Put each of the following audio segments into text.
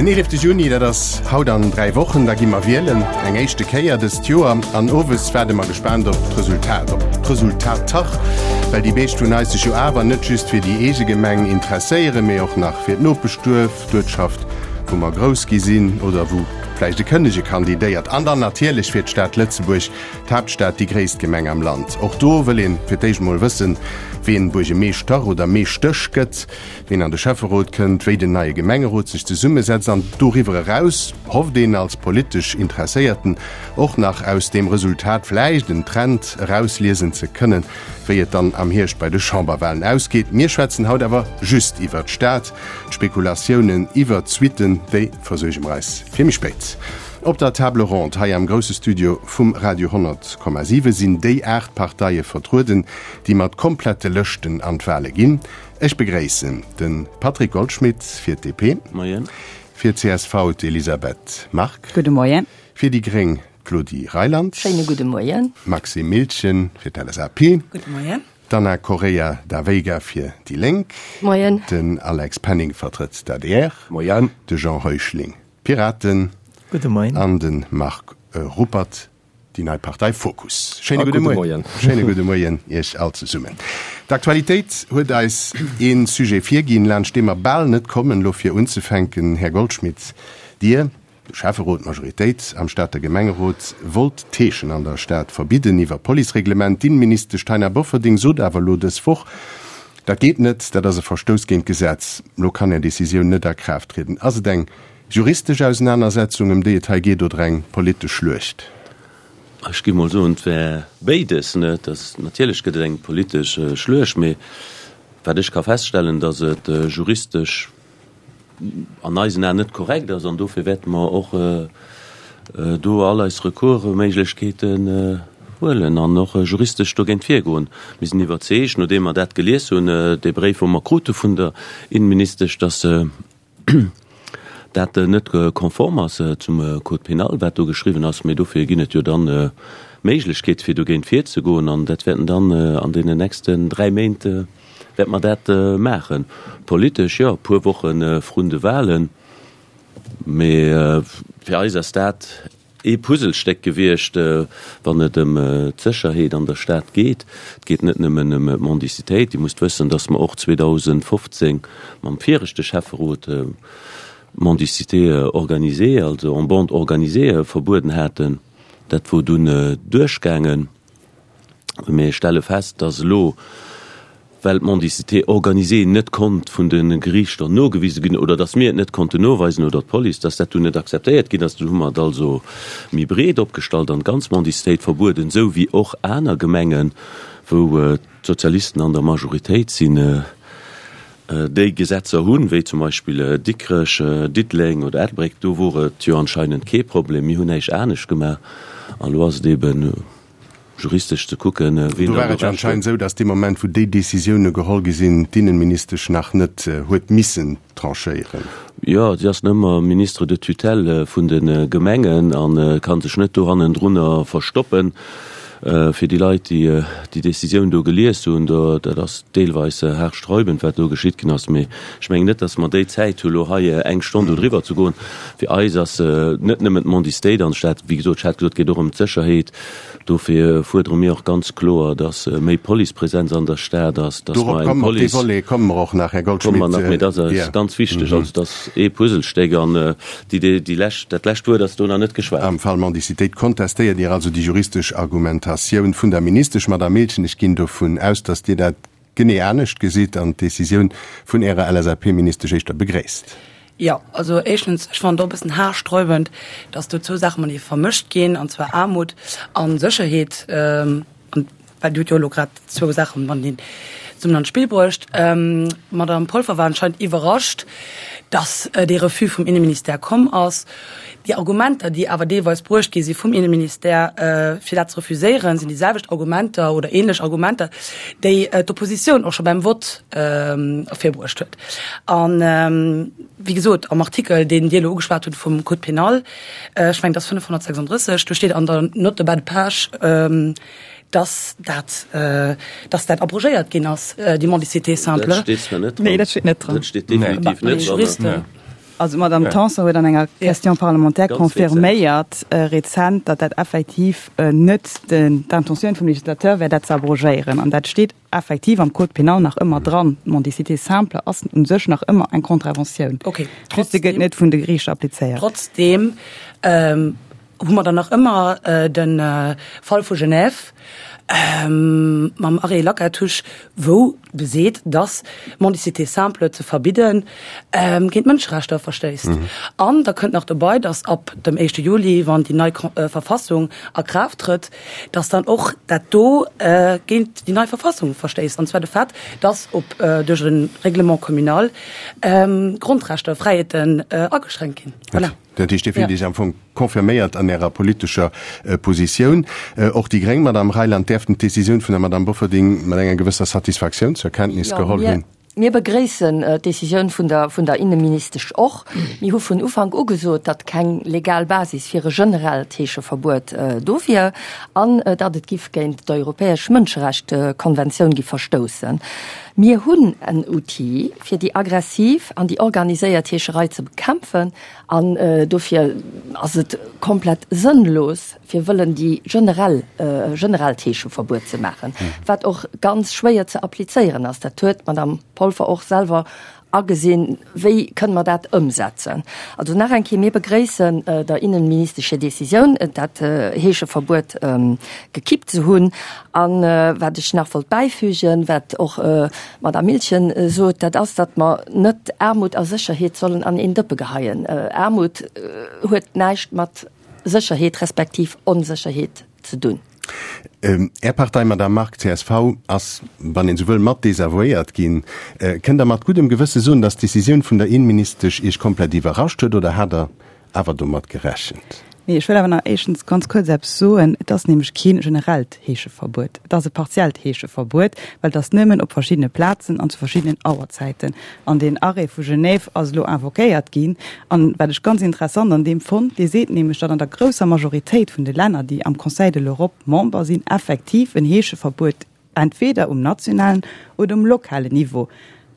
Den 11 Juni, dat ass haut an 3 Wochen, da gi mer wielen, eng éischte Kéier dëst Joer. An owes waarde mer gespaant op d'Resultat, op d'Resultater, well déi meescht vun eis sech jo awer net just fir déi eege Gemeng interesséieren, mee och nach fir d'Nopeschduerf, d'Uertschaft, wou mer grouss gi sinn oder wou vläicht e Kënnege kandidéiert. An dann natierlech fir d'Stad Lëtzebuerg, d'Haaptstad, déi gréisst Gemeng am Land. Och do wëll een fir d'éischt mol wëssen, ween Buergemeeschter oder Meeschtesch gëtt, ween an de Schäfferot kënnt, wéi den neie Gemengerot sech zesummesetzt an doriwwer eraus hofft een als politesch Interesséierten och nach aus deem Resultat vläicht en Trend erausliesen ze kënnen, wéi et dann am Hierscht bei de Chamberwahlen ausgeet. Mir schwätzen haut awer just iwwert d'Stad. D'Spekulatiounen iwwert d'Suitten, déi versuerge mer eis fir méi spéit. Op der Table ronde hei am grousse Studio vum Radio 100,7 sinn déi 8 Parteie vertrueden, déi mat komplette Lëschten an d'Wahle ginn. Ech begréissen de Patrick Goldschmidt fir d'DP, Moien. fir d'CSV d'Elisabeth Margue, Gudde Moien. fir déi Gréng d'Claudie Reyland, Schéine gudde Moien. Maxime Miltgen fir d'LSAP, Gudde Moien. D'Ana Correia da Veiga fir déi Lénk, Moien. Den Alex Penning vertrëtt d'ADR, Moien. De Jean Heuschling d'Piraten Gudde Moien. an de Marc Ruppert déi nei Partei Fokus. Schéine A gudde gudde Moien. Moien. Schéine gudde Moien Iech all zesummen. D'Aktualitéit huet eis ee Sujet virginn, laanscht dee mer bal net kommen. Elo fir unzefänken, Här Goldschmidt, Dir, de Schäfferot, d'Majoritéit am Stater Gemengerot wollt d'Heeschen an der Stad verbidden iwwer Policereglement. D'Inneministesch Taina Bofferding sot awer elo dës Woch, dat geet net, dat ass e Verstouss géint d'Gesetz. Elo kann Är Decisioun net a Kraaft trieden. Ass et eng juristesch Ausenanersetzung, ëm déi et hei geet, oder eng politesch Schluecht? Ech géif mol soen, et wär béides. Natierlech gëtt et eng politesch Schluecht, mee wat ech ka feststellen, datt et juristesch an eisen Aen net korrekt ass an dofir wäerte mer och do all eis Recoursméiglechkeeten huelen an och juristesch dogéint virgoen. Mir sinn iwwerzeegt, nodeem mer dat gelies hunn, dee Bréif wou mer krute vun der Innenministesch, dass dat net konform ass zum Code pénal, wat do geschriwwen ass. Mee dofir ginn et jo dann Méiglechkeete fir dogéint virzegoen an dat wäerten dann an deenen nächsten 3 Méint Wäerte mer dat maachen? Politesch, jo, e puer Woche vrun de Wahlen. Mee fir eis ass dat ee Puzzlestéck gewiescht, wann et ëm d'Sécherheet an der Stad geet. Et geet net nëmmen ëm d'Mendicitéit. Dir musst wëssen, datt mer och 2015 mam viregte Schäfferot d'Mendicité organisée, also en bande organisée, verbueden haten. Dat wor dunn duerchgaangen. Mir stelle fest, dass elo, well d'Mendicité organisée net konnt vun de Geriichter nogewise ginn oder dass mir et net konnten noweisen oder d'Police, dass dat dunn net akzeptéiert ginn ass. Dunn hu mer et also méi breet opgestallt an d'ganz Mendicitéit verbueden, esou wéi och aner Gemengen, wou d'Sozialisten an der Majoritéit sinn, déi Gesetzer hunn, wéi zum Beispill Dikrech, Diddeleng oder Ettelbréck. Do wor et jo anscheinend kee Problem. Mir hunn näischt anescht gemaach an elo ass et eeben juristesch ze kucken, ween Do war et jo anscheinend esou, datt dee Moment, wou déi Décisioune geholl gi sinn, d'Innenministesch nach net huet missen tranchéieren. Jo, si ass nëmmer Ministre de tutelle vun de Gemengen a ka sech net do hannendrunner verstoppen. Fir déi Leit, déi déi Décisioun do gelies hunn, do, dat ass deelweis haarsträubend, wat do geschitt ginn ass. Mee ech mengen net, datt mer déi Zäit hu lo hei eng Stonn do driwwer ze goen. Fir eis ass net nëmmen d'Mendicité an der Stad, wéi gesot, ech hat gesot, et geet och ëm d'Sécherheet. Dofir fuerdere mir och ganz kloer, dass méi Policepresenz an der Stad ass, dass mer eng Police. Op dee Volet komme mer och nach, Här Goldschmidt. Komme mer nach, mee dat ass ganz wichteg. Also dat ass ee Puzzlestéck an déi, déi lescht, dat lescht Wuert ass do nach net geschwat. Am Fall Mendicitéit kontestéiert Dir also déi juristesch Argumentatioun vun der Ministesch. Madame Miltgen, ech ginn dovun aus, dass Dir dat genee anescht gesitt an d'Decisioun vun Ärer LSAP-Ministesch éischter begréisst. Jo, also éischtens, ech fannen et och e bëssen haarsträubend, dass do zwou Saache matenee vermëscht ginn, an zwar Aarmut a Sécherheet, an well Dir hutt jo elo grad zwou Saache mateneen zesummen an d'Spill bruecht. D'Madame Polfer war anscheinend iwwerrascht, dass dee Refus vum Inneministère komm ass. Déi Argumenter, déi awer deelweis bruecht gi si vum Inneministère, fir dat ze refuséieren, sinn déi selwecht Argumenter oder ähnlech Argumenter, déi d'Oppositioun och scho beim Vott ervirbruecht huet. An, wéi gesot, am Artikel, deen Dir elo ugeschwat hutt vum Code pénal, ech mengen, et ass 536, do steet an der Note de bas de page, dass dat, dass dat abrogéiert ginn ass, déi Mendicité simple. Dat steet zwar net dran. Nee, dat steet net dran. Dat steet definitiv net dran. Also d'Madame Tanson huet an enger Question parlementaire confirméiert rezent, datt dat effektiv net d'Intentioun vum Législateur wär, dat ze abrogéieren. An dat steet effektiv am Code pénal nach ëmmer dran. D'Mendicité simple ass u sech nach ëmmer eng Contraventioun. Just se gëtt net vun de Geriichter applizéiert. Trotzdem hu mer dann nach ëmmer de Fall vu Genève mam Arrêt Lacatus, wou beseet, dass Mendicité simple ze verbidden géint d'Mënscherechter verstéisst. An da kënnt nach dobei, dass ab dem éischte Juli, wann déi nei Verfassung a Kraaft trëtt, dass dann och dat do géint déi nei Verfassung verstéisst, an zwar de Fait, dass op duerch e Règlement communal Grondrechter, Fräiheeten ageschränkt ginn. Voilà. Dat heescht, Dir fillt Iech am Fong confirméiert an Ärer politescher Positioun. Och déi gréng Madame Reyland däerften d'Decisioun vun der Madame Bofferding mat enger gewësser Satisfaktioun zur Kenntnis geholl hunn. Mir begréissen d'Decisioun vun der vun der Inneministesch och. Mir hu vun Ufank u gesot, datt keng legal Basis fir e generellt Heescheverbuet do wier an datt et giff géint d'europäesch Mënscherechtkonventioun gi verstoussen. Mir hunn en Outil, fir déi aggressiv an déi organiséiert Heescherei ze bekämpfen an dofir ass et komplett sënnlos, fir wëllen déi generell, generellt Heescheverbuet ze maachen, wat och ganz schwéier ze applizéieren ass. Dat huet d'Madame Polfer och selwer agesinn. Wéi kënne mer dat ëmsetzen? Also nach eng Kéier, mir begréissen der Innenministesch hir Décisioun, dat Heescheverbuet gekippt ze hunn. A wat ech nach wollt bäifügen, wat och d'Madame Miltgen sot, dat ass, datt mer net Aarmut a Sécherheet sollen an een Dëppe geheien. Aarmut huet näischt mat Sécherheet respektiv Onsécherheet ze dunn. Är Partei, Madame Margue, csv, ass, wann een esou wëll, mat desavouéiert ginn. Kënnt Der mat guddem Gewësse soen, datt d'Decisioun vun der Innenministesch Iech komplett iwwerrascht huet oder hat Der awer domat gerechent? Nee, ech wëll awer nach éischtens ganz kuerz eppes soen. Et ass nämlech kee generellt Heescheverbuet. Et ass e partiellt Heescheverbuet, well et ass nëmmen op verschiddene Plazen an zu verschiddenen Auerzäiten. An deen Arrêt vu Genève ass elo invoquéiert ginn. An wat ech ganz interessant an deem fonnt, dee seet nämlech, datt an der grousser Majoritéit vun de Länner, déi am Conseil de l'Europe Member sinn, effektiv en Heescheverbuet entweder um nationalen oder um lokalen Niveau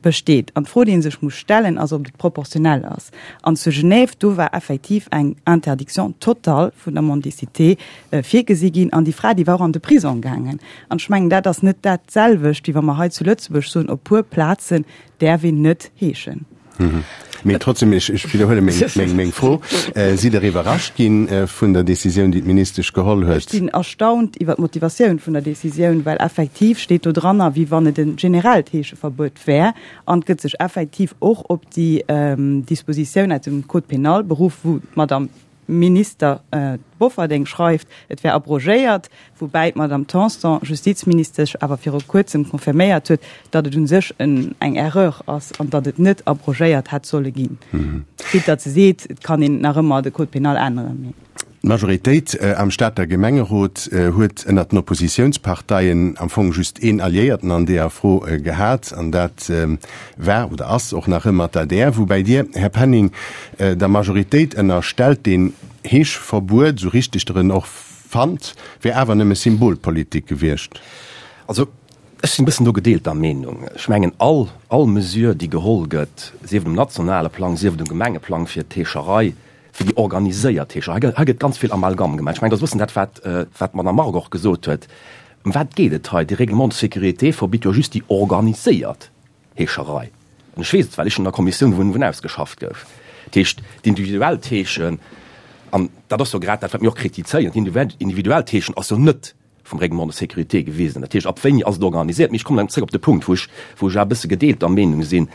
besteet. An d'Fro, déi ee sech muss stellen, ass, ob et proportionell ass. An zu Genève, do war effektiv eng Interdiction totale vun der Mendicité virgesi ginn. An déi Fra, déi war och an de Prisong gaangen. An ech mengen, dat ass net dat selwecht, wéi wa mer hei zu Lëtzebuerg soen, op puer Plazen däerf een net heeschen. Mee trotzdem, ech widderhuele meng Fro, Sidd Der iwwerrascht gi vun der Decisioun, déi d'Ministesch geholl huet? Ech sinn erstaunt iwwer d'Motivatioun vun der Decisioun, well effektiv steet do dranner, wéi wann et e generellt Heescheverbuet wär, an et gëtt sech effektiv och op déi Dispositioun aus dem Code pénal beruff, wou d'Madame Minister Bofferding schreift, et wär abrogéiert, woubäi d'Madame Tanson, Justizministesch, awer viru kuerzem confirméiert huet, datt et u sech eng Erreur ass an datt et net abrogéiert hätt solle ginn. Quitte datt se seet, et kann een nach ëmmer de Code pénal änneren. D'Majoritéit am Stater Gemengerot huet ënnert den Oppositiounsparteien am Fong just een Alliéierten an deeër Fro gehat, an dat war oder ass och nach ëmmer d'ADR. Woubäi Dir, Här Penning, der Majoritéit ënnerstellt, deen Heeschverbuet, esou richteg Der en och fannt, wär awer nëmme Symbolpolitik gewiescht. Also, ech sinn e bëssen do gedeelter Meenung. Ech mengen, all, all Mesure, déi geholl gëtt, sief et um nationale Plang, sief et um Gemengeplang, fir d'Heescherei, fir déi organiséiert Heescherei, hei gëtt, hei gëtt ganz vill Amalgam gemaach. Ech mengen, dat ass e bëssen dat, wat, wat d'Madame Margue och gesot huet. Ëm wat geet et hei? De Règlement de sécurité verbitt jo just déi organiséiert Heescherei. An ech weess et, well ech an der Kommissioun wou en ausgeschafft gouf. Dat heescht, d'individuellt Heeschen, an dat ass jo grad dat, wat mir och kritizéieren, d'individuellt Heeschen ass jo net vum Règlement de sécurité gewisen. Dat heescht, ab wéini ass et organisiert? Mee ech kommen dann zréck op de Punkt, wou ech, wou ech awer e bësse gedeelter Meenung sinn.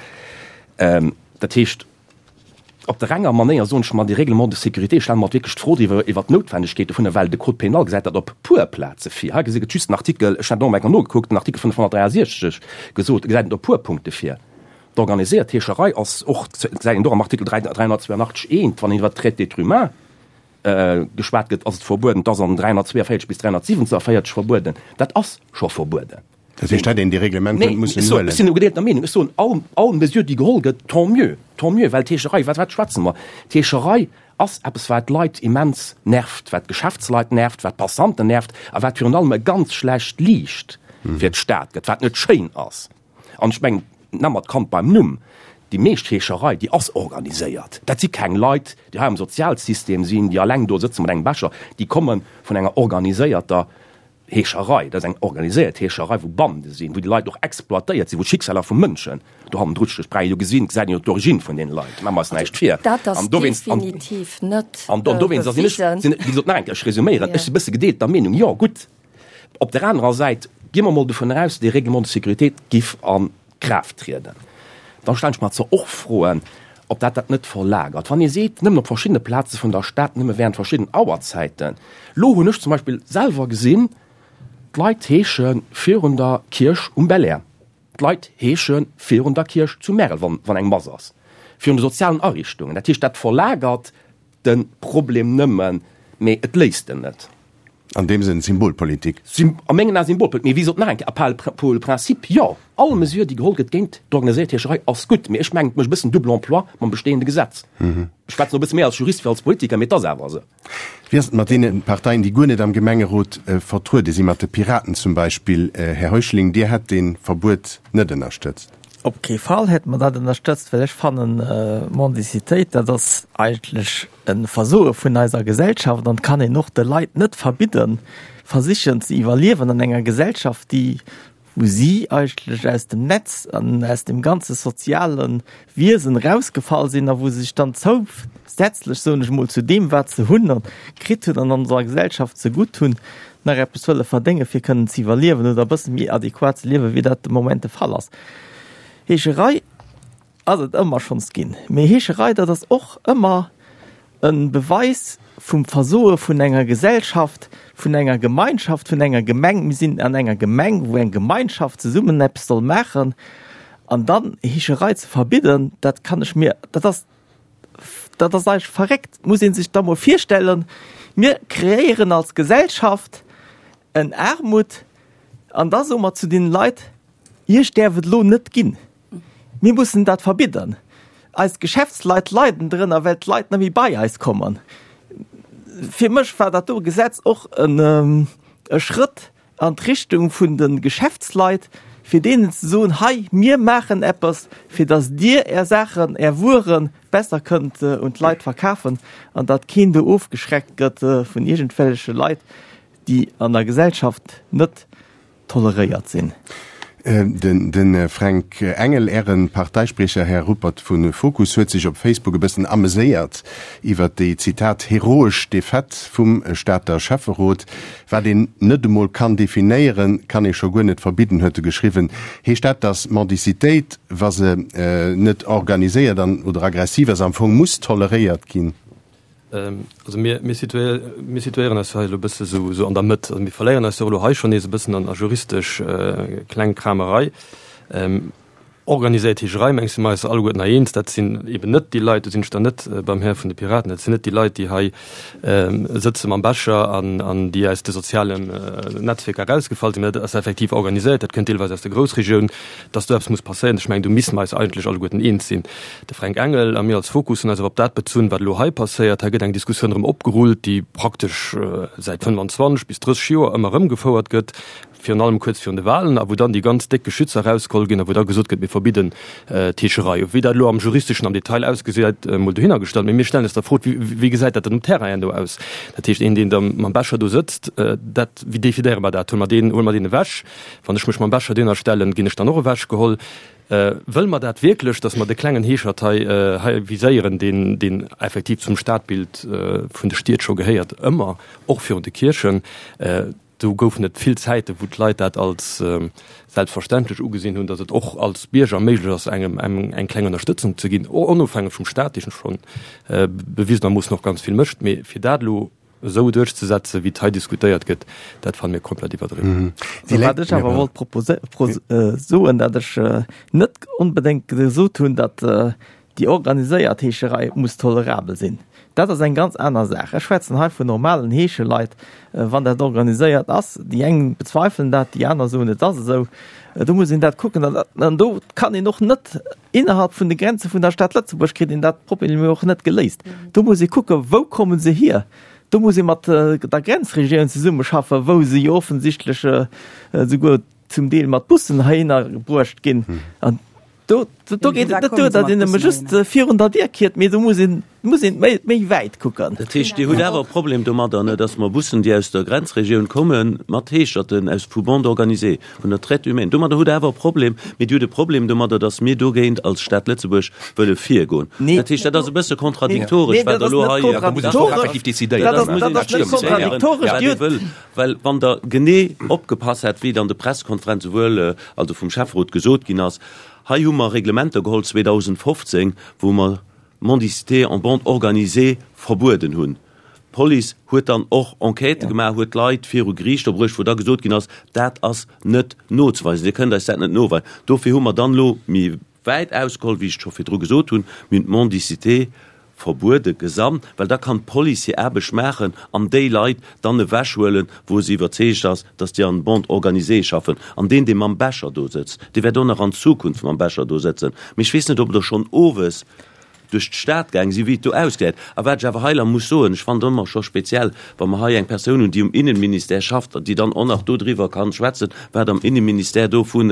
Dat heescht, Op der enger Manéier soen ech mer, dee Règlement de sécurité, ech stelle mer wierklech d'Fro driwwer, iwwert d'Noutwendegkeet dovunner, well de Code pénal gesäit dat op puer Plaze vir. Hei gesi gëtt just den Artikel, ech hat och eng Kéier nogekuckt, den Artikel 563 gesot, gesäit et op puer Punkte vir. D'organiséiert Heescherei ass och, gesäit een och am Artikel 382 eent, wann een iwwert d'Traite d'êtres humains geschwat gëtt, ass et verbueden. Et ass an 342 bis 347 verbueden. Dat ass scho verbueden. Dat heescht, hätt een déi Reglement net mussen huelen? Ech sinn gedeelter Meenung. Ech soen, all, all Mesure, déi geholl gëtt, tant mieux, tant mieux, well d'Heescherei, wat, wat schwätze mer? D'Heescherei ass eppes, wat d'Leit immens nervt, wat d'Geschäftsleit nervt, wat d'Passanten nervt a wat virun allem e ganz schlecht Liicht fir d'Stad gëtt, wat net schéin ass. An ech mengen, nenne mer d'Kand beim Numm. Déi meescht Heescherei, déi ass organiséiert. Dat si keng Leit, déi hei am Sozialsystem sinn, déi alleng do sëtze mat engem Becher. Déi komme vun enger organiséierter Heescherei. Dat ass eng organiséiert Heescherei, wou Bande sinn, wou déi Leit och exploitéiert sinn, wou d'Schicksaler vu Mënschen do hannendru stinn. Ech jo gesinn, gesäit een jo d'Origine vun deene Leit. Maache mer eis näischt vir. Dat ass definitiv net An dowéinst sinn ech, wéi gesot, nach eng Kéier, ech resuméieren, ech si e bësse gedeelter Meenung. Jo, gutt, op der anerer Säit gi mer emol dovun aus, dee Règlement de sécurité giff a Kraaft trieden. Da stellen ech mer zwar och Froen, ob dat dat net verlagert, wann ee seet, nëmmen op verschiddene Plaze vun der Stad, nëmme während verschidden Auerzäiten. Lo hunn ech zum Beispill selwer gesinn, d'Leit heesche virun der Kierch um Belair, d'Leit heesche virun der Kierch zu Märel, wann eng Mass ass, virun de sozialen Ariichtungen. Dat heescht, dat verlagert de Problem nëmmen, mee et léist en net. An deem Sënn Symbolpolitik. A mengen Ae Symbolpolitik. Mee wéi gesot, nach eng Kéier, à part pour le principe, jo, all Mesure, déi geholl gëtt géint d'organiséiert Heescherei, ass gutt. Mee ech mengen, et mécht e bëssen double emploi mam bestehende Gesetz. Ech schwätzen elo e bësse méi als Jurist wéi als Politiker, mee et ass awer esou. Wéi ass et mat deene Parteien, déi guer net am Gemengerot vertruede sinn, mat de Piraten zum Beispill? Här Heuschling, Dir hätt dee Verbuet net ënnerstëtzt. Op kee Fall hätt mer dat ënnerstëtzt, well ech fannen, Mendicitéit, dat ass eigentlech e Versoe vun eiser Gesellschaft an et kann een och de Leit net verbidden, versichen ze iwwerliewen an enger Gesellschaft, déi, wou si eigentlech aus dem Netz an aus dem ganze soziale Wiesen erausgefall sinn a wou se sech dann zousätzlech, soen ech emol, zu deem, wat se hunn a kritt hunn an onser Gesellschaft zegutt hunn, nach eppes wëlle verdéngen, fir kënnen ze iwwerliewen oder e bësse méi adequat ze liewen, wéi dat de Moment de Fall ass. Heescherei ass et ëmmer schonns ginn. Mee Heescherei, dat ass och ëmmer e Beweis vum Versoe vun enger Gesellschaft, vun enger Gemeinschaft, vun enger Gemeng. Mir sinn an enger Gemeng, wou eng Gemeinschaft zesummen eppes soll maachen. An dann Heescherei ze verbidden, dat kann ech mir, dat ass, Dat ass eigentlech verréckt, muss ee sech da mol virstellen. Mir kreéieren als Gesellschaft en Aarmut an da soe mer zu deenen Leit, Iech däerf et elo net ginn. Mir mussen dat verbidden. Eis Geschäftsleit leiden drënner, well d'Leit net méi bei eis kommen. Fir mech war dat do Gesetz och e Schrëtt an d'Richtung vun de Geschäftsleit, fir deenen ze soen, hei, mir maachen eppes, fir datt Dir Är Saachen, Är Wuere besser kënnt un d'Leit verkafen an datt keen do ofgeschreckt gëtt vun iergendwelleche Leit, déi an der Gesellschaft net toleréiert sinn. De Fränk Engel, Äre Parteispriecher, Här Ruppert vu Fokus, huet sech op Facebook e bëssen ameséiert iwwer déi, Zitat, heroesch Defaite vum Stater Schäfferot. Wat een net emol kann definéieren, kann ee scho guer net verbidden, huet e geschriwwen. Heescht dat, datt Mendicitéit, wa se net organiséiert an oder aggressiv ass, am Fong muss toleréiert ginn? Also mir, mir situéieren eis jo hei elo e bësse sou, sou an der Mëtt. Also mir verléieren eis jo elo hei schonn nees e bëssen an a juristesch Klengkramerei. Organiséiert Heescherei, mengs si mer eis alleguerten hei eens, dat sinn eben net déi Leit, do sinn ech dann net beim Här vun de Piraten, dat sinn net déi Leit, déi hei sëtze mam Becher an, an déi aus de sozialen Netzwierker erausgefall sinn, mä dat ass effektiv organiséiert, dat kënnt deelweis aus der Groussregioun, dass do eppes muss passéieren. Ech mengen, do misste mer eis eigentlech alleguerten eens sinn. De Fränk Engel a mir als Fokus hunn eis awer op dat bezunn, wat elo hei passéiert. Hei gëtt eng Diskussioun erëm opgerullt, déi praktesch säit 25 bis 30 Joer ëmmer erëm gefouert gëtt, virun allem kuerz virun de Wahlen, a wou dann déi ganz déck Geschützer erausgeholl ginn a wou da gesot gëtt, mir verbidden d'Heescherei. Wéi dat elo am Juristeschen am Detail ausgesäit, emol dohinner gestallt. Mee mir stellen eis da d'Fro, wéi gesäit dat dann um Terrain herno aus? Dat heescht, een, deen da mam Becher do sëtzt, dat, wéi definéiere mer dat? Huele mer deen, huele mer deen ewech? Wann ech mech mam Becher dohinner stellen, ginn ech dann och ewechgeholl? Wëlle mer dat wierklech, datt mer de klengen Heeschert hei, hei viséieren, deen, deen effektiv zum Stadbild vun de Stied scho gehéiert, ëmmer, och virun de Kierchen? Do goufen et vill Zäiten, wou d'Leit dat als selbstverständlech ugesinn hunn, datt et och als Bierger méiglech ass, engem eng kleng Ënnerstëtzung ze ginn, onofhängeg vum Staat, dee scho bewisenermoossen och ganz vill mécht. Mee fir dat elo esou duerchzesetzen, wéi et hei diskutéiert gëtt, dat fanne mir komplett iwwerdriwwen. Wat ech awer wollt soen, datt ech net onbedéngt gesot hunn, datt Déi organiséiert Heescherei muss tolerabel sinn. Dat ass eng ganz aner Saach. Ech schwätzen hei vun normalen Heescheleit, wann dat organiséiert ass. Déi eng bezweifelen dat, déi aner soen, et ass esou. Do muss een dat kucken. An do kann een och net innerhalb vun de Grenze vun der Stad Lëtzebuerg kritt een dat Problem jo och net geléist. Do muss ee kucken, wou komme se hier? Do muss ee mat der Grenzregioun zesummeschaffen, wou se jo offensichtlech esouguer zum Deel mat Bussen heihinner bruecht ginn. Do, do geet et net duer, datt een nëmme just virun der Dier kiert, mee do muss een, muss een méi, méi wäit kucken. Dat heescht, Dir hutt awer e Problem domadder, ne, datt mer Bussen, déi aus der Grenzregioun kommen, mat Heescherten aus vu Bande organisée, vun der Traite humaine, domadder hutt Der awer e Problem, mee Dir hutt e Problem domadder, datt mir dogéint als Stad Lëtzebuerg wëlle virgoen. Nee. Dat heescht, dat ass e bësse kontradiktoresch, Nee, wat dat Der ass elo net hei. kontradiktoresch. Dat ass, dat ass net kontradiktoresch. Dir hutt. Well wann Der genee opgepasst hätt, wéi et an de Pressekonferenze wuel, also vum Schäfferot gesot ginn ass, hei hu mer Reglementer geholl 2015, wou mer d'Mendicité en bande organisée verbueden hunn. D'Police huet dann och Enquêtë gemaach, huet Leit viru Geriichter bruecht, wou da gesot ginn ass, dat ass net nozeweisen, Dir kënnt eis dat net noweisen. Dofir hu mer dann elo méi wäit ausgeholl, wéi ech et scho virdru gesot hunn, mir hunn d'Mendicité verbuede gesamt, well da kann d'Police hir Aarbecht maachen an déi Leit dann ewechhuelen, wou se iwwerzeegt ass, dass déi an Bande organisée schaffen. An deen, dee mam Becher do sëtzt, dee wäert och nach an Zukunft mam Becher do sëtzen. Mee ech weess net, ob der schonn owes duerch d'Stad gaang sinn, wéi et do ausgesäit. A wat ech awer hei la muss soen, ech fannen et ëmmer scho speziell, wa mer hei eng Persoun hunn, déi um Innenministère schafft, déi dann och nach dodriwwer kann schwätzen, wat am Innenministère do vun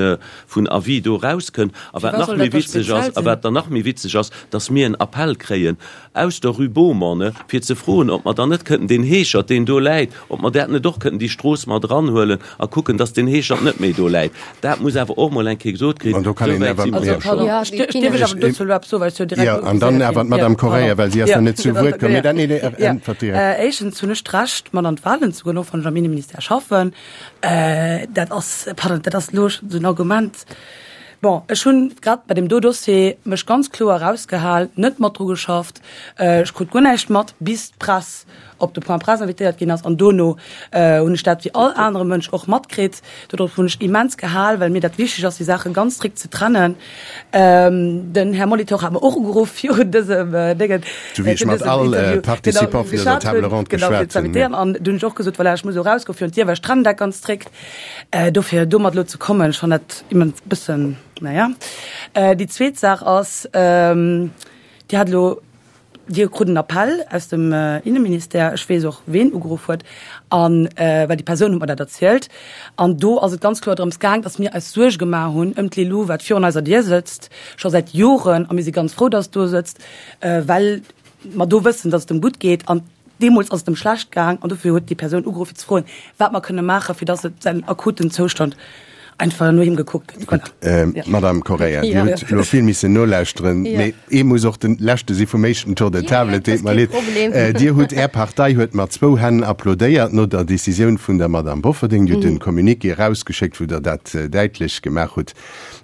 vun Avis do erauskënnt. A wat nach méi witzeg ass, a wat dann nach méi witzeg ass, dass mir en Appell kréien aus der Rue Beaumont, fir ze froen, ob mer dann net kënnten deen Heeschert, deen do läit, ob mer dat net och kënnten déi Strooss mat eranhuelen a kucken, dass deen Heeschert net méi do läit. Dat muss awer och mol eng Kéier gesot kréien. An do kann een Esou wäit awer, si mer jo. jo schonn. Ja, Dierf ech awer dozou elo eppes soen, well ech jo direkt Jo, an dann ugeséiert awer ginn. d'Madame Jo, Correia, pardon. well si ass Jo, nach net zu Wuert komm. Mee dann, nee, nee, Ja. äntwert direkt. Éischtens hunn ech d'Recht, mat an d'Wahlen ze goen, och wann ech am Inneministère schaffen. Dat ass, pardon, dat ass elo esou en Argument. Bon, ech hunn grad bei deem do Dossier mech ganz kloer erausgehal, net mat dru geschafft. Ech krut guer näischt mat, bis d'Press op de Point presse invitéiert ginn ass. An dono hunn ech dat wéi all anere Mënsch och matkritt. Dodrop hunn ech immens gehal, well mir dat wichteg ass, déi Saache ganz strikt ze trennen. Den Här Molitor hat mer och ugeruff virun dësem Déngen, Sou wéi ech mat all Participant vun dëser Table ronde geschwat hunn. An du hunn ech och gesot, voilà, ech muss elo erausgoen virun d'Dier, well ech trennen dat ganz strikt. Dofir domat elo ze kommen, ech fannen dat immens bëssen, naja. Déi zweet Saach ass, Dir hat elo, Dir krut en Appell aus dem Inneministère, ech weess och ween ugeruff huet, an well déi Persoun huet mer dat erzielt, an do ass et ganz kloer drëms gaang, datt mir eis Suerge gemaach hunn ëm d'Lilou, wat virun eiser Dier sëtzt, scho säit Joren, a mir si ganz frou, datt et do sëtzt, well mer do wëssen, datt et em gutt geet. An Deemools ass et em schlecht gaang an dofir huet déi Persoun ugeruff fir ze froen, wat mer kënne maachen, fir dass et säin akuten Zoustand einfach no him gekuckt gëtt. Gutt, Madame Correia, Dir hutt elo vill missen nolauschteren, mee ee muss och de Leschte si vum éischten Tour de table, et deet mer leed. Dir hutt, Är Partei huet mat zwou Hänn applaudéiert no der Decisioun vun der Madame Bofferding. Dir hutt e Communiqué erausgeschéckt, wou Der dat däitlech gemaach hutt,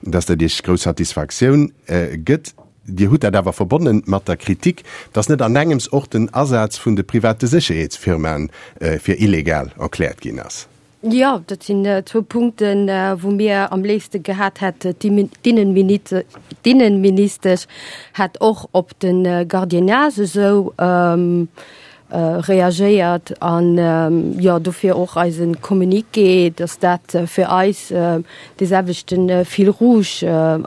dass dat Iech grouss Satisfaktioun gëtt. Dir hutt dat awer verbonne mat der Kritik, datt net an engems och den Asaz vun de private Sécherheetsfirmaen fir illegal erkläert ginn ass. Jo, dat sinn zwou Punkten, wou mir am léifste gehat hätt, d'Innenministesch hätt och op de Gardiennage esou reagéiert an jo dofir och eise Communiqué, dass dat fir eis dee selwechte Fil rouge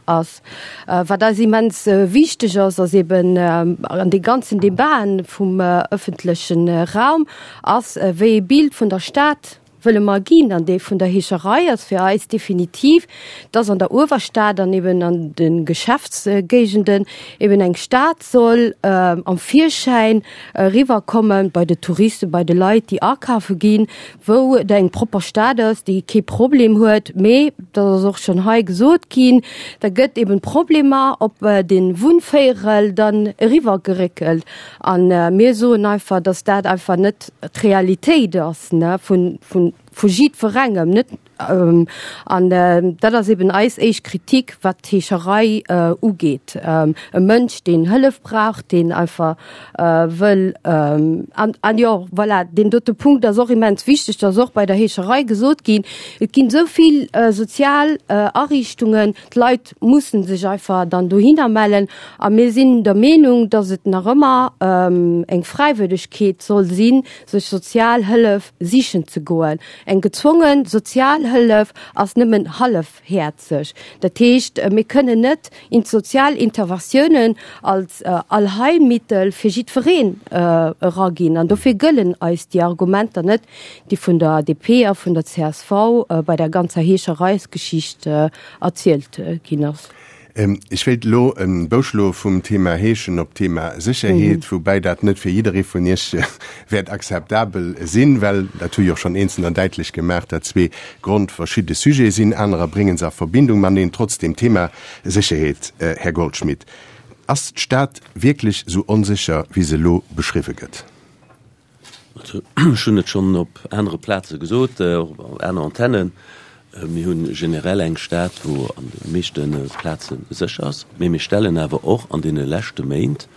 ass. Wat eis immens wichteg ass, ass eben an de ganzen Debaten vum ëffentleche Raum, ass wéi ee Bild vun der Stad wëlle mer ginn. An dee vun der Heescherei ass fir eis definitiv, dass an der Uewerstad an eben an de Geschäftsgéigenden eben eng Stad soll am Virschäin eriwwerkommen, bei de Touristen, bei de Leit, déi akafe ginn, wou et eng propper Stad ass, déi kee Problem huet. Mee, dat ass och schonn hei gesot ginn, da gëtt eben d'Problemer op de Wunnvéierel dann eriwwergeréckelt. A mir soen einfach, dass dat einfach net d'Realitéit ass vu jiddwerengem. Net, an dat ass eben eis éischt Kritik, wat d'Heescherei ugeet. E Mënsch, deen Hëllef brauch, deen einfach wëll, an jo, voilà, deen dote Punkt ass och immens wichteg, dat ass och bei der Heescherei gesot ginn, Et ginn esou vill sozial Ariichtungen, D'Leit mussen sech einfach dann dohinner mellen. A mir sinn der Meenung, dass et nach ëmmer eng Fräiwëllegkeet soll sinn, sech Sozialhëllef sichen ze goen. Eng gezwonge Sozialhëllef ass nëmmen hallefhäerzeg. Dat heescht, mir kënnen net sozial Interventiounen als Allheilmittel fir jiddwereen eraginn. An dofir gëllen eis déi Argumenter net, déi vun der DP a vun der csv bei der ganzer Heeschereisgeschicht erzielt ginn ass. Ech wéilt elo e Bou schloe vum Thema Heeschen op d'Thema Sécherheet, woubäi dat net fir jidderee vun Iech wäert akzeptabel sinn, well, dat hu jo och schonn Eenzelner däitlech gemaach, dat zwee grondverschidde Sujete sinn. Anerer brénge se a Verbindung mateneen. Trotzdem, Thema Sécherheet, Här Goldschmidt, ass d'Stad wierklech esou onsécher, wéi se elo beschriwwe gëtt? Also, ech hunn et schonn op anere Plaze gesot, och op aner Antennen, Mir hu generell eng Stad, wou an de meeschte Plaze sécher ass, mee mir stellen awer och an deene leschte Méint,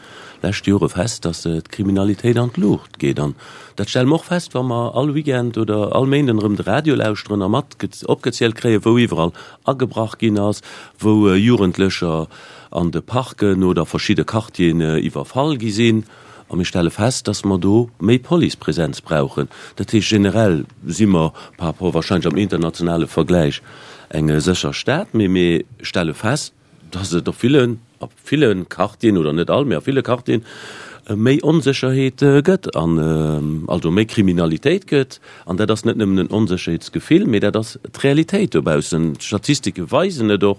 leschte Jore fest, datt d'Kriminalitéit an d'Luucht geet. An dat stelle mer och fest, wa mer all Weekend oder all Méinden erëm de Radio lauschteren a mat opgezielt kréien, wou iwwerall agebrach ginn ass, wou Jugendlecher an de Parken oder verschidde Quartieren iwwerfall gi sinn. A mir stelle fest, dass mer do méi Policepresenz brauchen. Dat heescht, generell si mer par rapport wahrscheinlech am internationale Vergläich eng sécher Stad, mee mir stelle fest, dass et op villen, a ville Quartieren, oder net all, mee a ville Quartieren méi Onsécherheet gëtt an also méi Kriminalitéit gëtt. An dat ass net nëmmen en Onsécherheetsgefill, mee dat ass d'Realitéit dobaussen. D'Statistike weisen et och.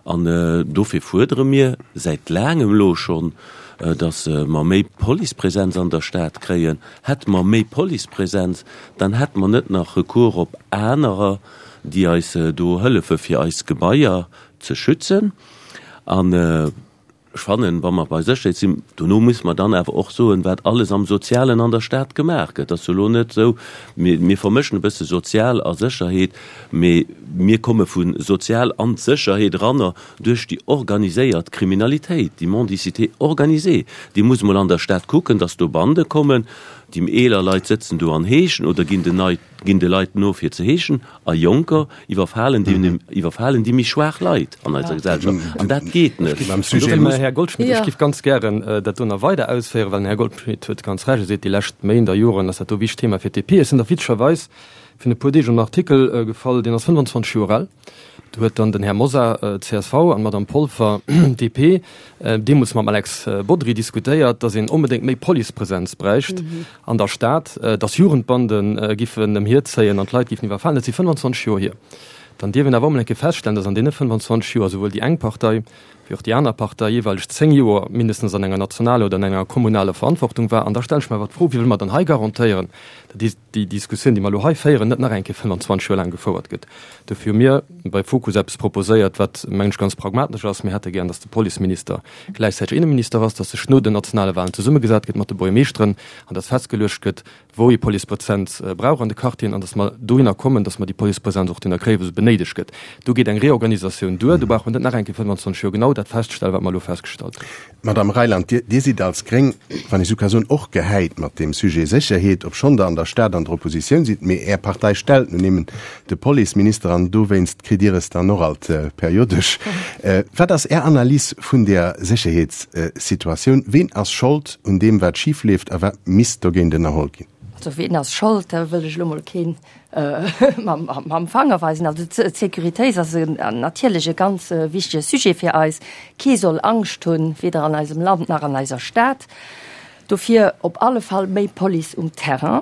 An dofir fuerdere mir säit laangem elo schonn, datt mer méi Policepresenz an der Stad kréien. Hätte mer méi Policepresenz, dann hätte mer net nach Recours op anerer, déi eis do hëllefe fir eis Gebaier ze schützen. An Ech fannen, wa mer bei Sécherheet sinn, dono muss mer dann awer och soen, wat alles am Sozialen an der Stad gemaach gëtt. Et ass jo elo net esou, mir, mir vermëschen e bësse Sozial a Sécherheet, mee mir komme vu Sozial an d'Sécherheet eranner duerch déi organiséiert Kriminalitéit, déi Mendicité organisée. Déi muss emol an der Stad kucken, dass do Bande kommen, déi eeler Leit sëtzen do an heeschen oder ginn den Nei, ginn de Leit no fir ze heeschen. A Jonker iwwerfalen déi, iwwerfalen déi méi schwaach Leit an eiser Gesellschaft. An dat geet net. An dofir, Här Goldschmidt, ech géif ganz gären dat do nach weider ausféieren, well den Här Goldschmidt huet ganz Recht, e seet, déi lescht Méint a Joren ass dat do e wichtegt Thema fir d'DP. Ech sinn da witzegerweis virun e puer Deeg op en Artikel gefall, deen ass 25 Joer al. Do huet dann den Här Mosar, csv, an d'Madame Polfer, DP, deemools mam Alex Bodry diskutéiert, datt een onbedéngt méi Policepresenz bräicht an der Stad, datt Jugendbande giffen ëmhierzéien an d'Leit giffen iwwerfalen. Dat si 25 Joer hier. Dann dierf een awer och mol eng Kéier feststellen, datt an deene 25 Joer souwuel déi eng Partei wéi och déi aner Partei jeeweileg 10 Joer mindestens an enger nationaler oder an enger kommunaler Verantwortung war. An da stelle ech mer awer d'Fro, Wéi wëlle mer dann hei garantéieren, datt déi Diskussioun, déi mer elo hei féieren, net nach eng Kéier 25 Joer laang gefouert gëtt? Dofir hu mir bei Fokus eppes proposéiert, wat, mengen ech, ganz pragmatesch ass. Mir hätte gären, datt de Policeminister gläichzäiteg Inneminister ass, datt sech no den nationale Wahlen zesummegesat gëtt mat de Buergermeeschteren an datt festgeluecht gëtt, wou ee Policepresenz brauch an de Quartieren an datt mer dohinner kommen, datt mer déi Policepresenz och dohinner kréien, wou se benéidegt gëtt. Do geet eng Reorganisatioun duer. Do brauch mer net nach eng Kéier 25 Joer genau dat feststellen, wat mer elo festgestallt hunn. Madame Reyland, Dir, Dir sidd als Gréng, wann ech esou ka soen, och gehäit mat deem Sujet Sécherheet, obschonn Der an der Stad an der Oppositioun sidd. Mee Är Partei stellt nun eben de Policeminister an dowéinst kritt Dir es dann och alt periodesch. Wat ass Är Analys vun der Sécherheetssituatioun? Ween ass Schold un deem, wat schif leeft a wat misst dogéint ënnerholl ginn? Also ween ass Schold, da wëll ech elo mol keen mam Fanger weisen. Also d'Sécuritéit ass natierlech e ganz wichtege Sujet fir eis. Kee soll Angscht hunn, weder an eisem Land nach an eiser Stad. Dofir op alle Fall méi Police um Terrain.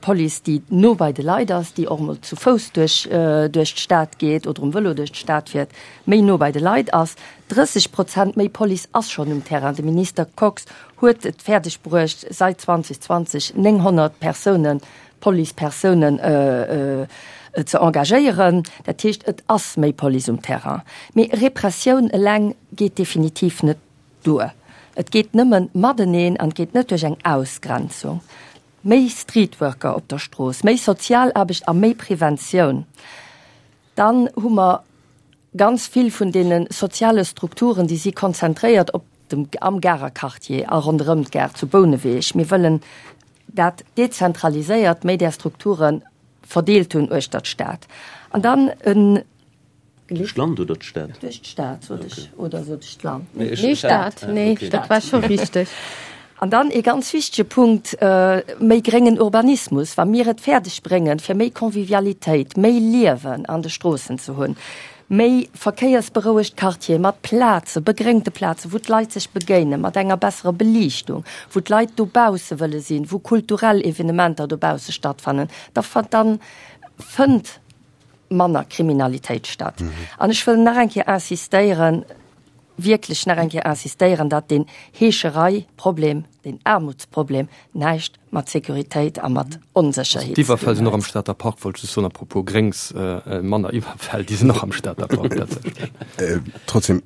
Police, déi no bei de Leit ass, déi och emol zu Fouss duerch duerch d'Stad geet oder um Vëlo duerch d'Stad fiert, méi no bei de Leit ass. 30 Prozent méi Police ass schonn um Terrain. De Minister Kox huet et fäerdeg bruecht, seit 2020 900 Persounen, Policepersounen ze engagéieren. Dat heescht, et ass méi Police um Terrain. Mee Repressioun eleng geet definitiv net duer. Et geet nëmmen mateneen an et geet net duerch eng Ausgrenzung. Méi Streetworker op der Strooss, méi Sozialaarbecht a méi Preventioun. Dann hu mer ganz vill vun deene soziale Strukturen, déi si konzentréiert op dem, am Garer Quartier a ronderëm d'Gare zu Bouneweg. Mir wëllen dat dezentraliséiert, méi där Strukture verdeelt hunn uechter d'Stad. An dann en. Duerch d'Land oder d'Stad? Duerch d'Stad, sot ech. Oder sot ech d'Land? Nee, Stad. Nee, dat war scho richteg. An dann ee ganz wichtege Punkt, méi gréngen Urbanismus. Wa mir et fäerdeg bréngen, fir méi Convivialitéit, méi Liewen an de Stroossen ze hunn, méi verkéiersberouegt Quartiere mat Plaze, begréngte Plazen, wou d'Leit sech begéinen, mat enger besserer Beliichtung, wou d'Leit dobausse wëlle sinn, wou kulturell Evenementer dobausse stattfannen, da fënnt. manner Kriminalitéit statt. An ech wëll nach eng Kéier insistéieren, wierklech nach eng Kéier insistéieren, datt deen Heescherei-Problem, deen Aarmutsproblem näischt mat Sécuritéit a mat Onsécherheet ze dinn huet. D'Iwwerfäll sinn och am Stater Park, wollt ech just soen, à propos Gréngs, manner Iwwerfäll, déi sinn och am Stater Park tatsächlech. Trotzdem,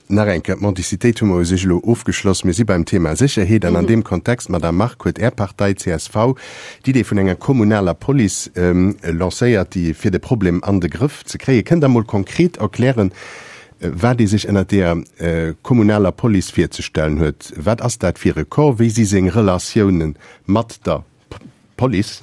Nach eng Kéier, d'Mendicitéit hu mer u sech elo ofgeschloss. Mir si beim Thema Sécherheet an an deem Kontext, Madame Margue, huet Är Partei csv d'Idee vun enger kommunaler Police lancéiert, déi fir de Problem an de Grëff ze kréien. Kënnt Der mol konkret erklären, wat ee sech ënnert deeër kommunaler Police virzestellen huet? Wat ass dat fir e Corps? Wéi si seng Relatiounen mat der Police,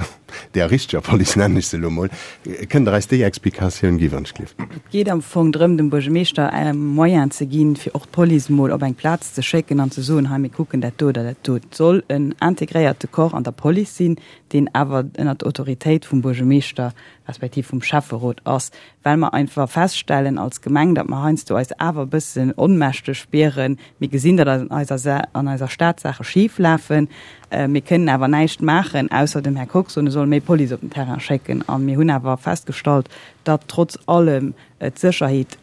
där richteger Police nennen ech se elo mol, kënnt Der eis déi Explikatioun gi wann ech gleef? Et geet am Fong drëm, dem Buergermeeschter Moyen ze ginn, fir och d'Police mol op eng Plaz ze schécken an ze soen, hei mir kucken dat do oder dat do. Et soll en integréierte Corps an der Police sinn, deen awer ënnert der Autoritéit vum Buergermeeschter respektiv vum Schäfferot ass, well mer einfach feststellen als Gemeng, datt mer heiansdo eis awer e bëssen onmächteg spieren. Mir gesinn, datt an eiser an eiser Stad Saache schif lafen. Mir kënnen awer näischt maachen, ausser dem Här Kox soen, e soll méi Police op den Terrain schécken. A mir hunn awer festgestallt, datt trotz allem d'Sécherheet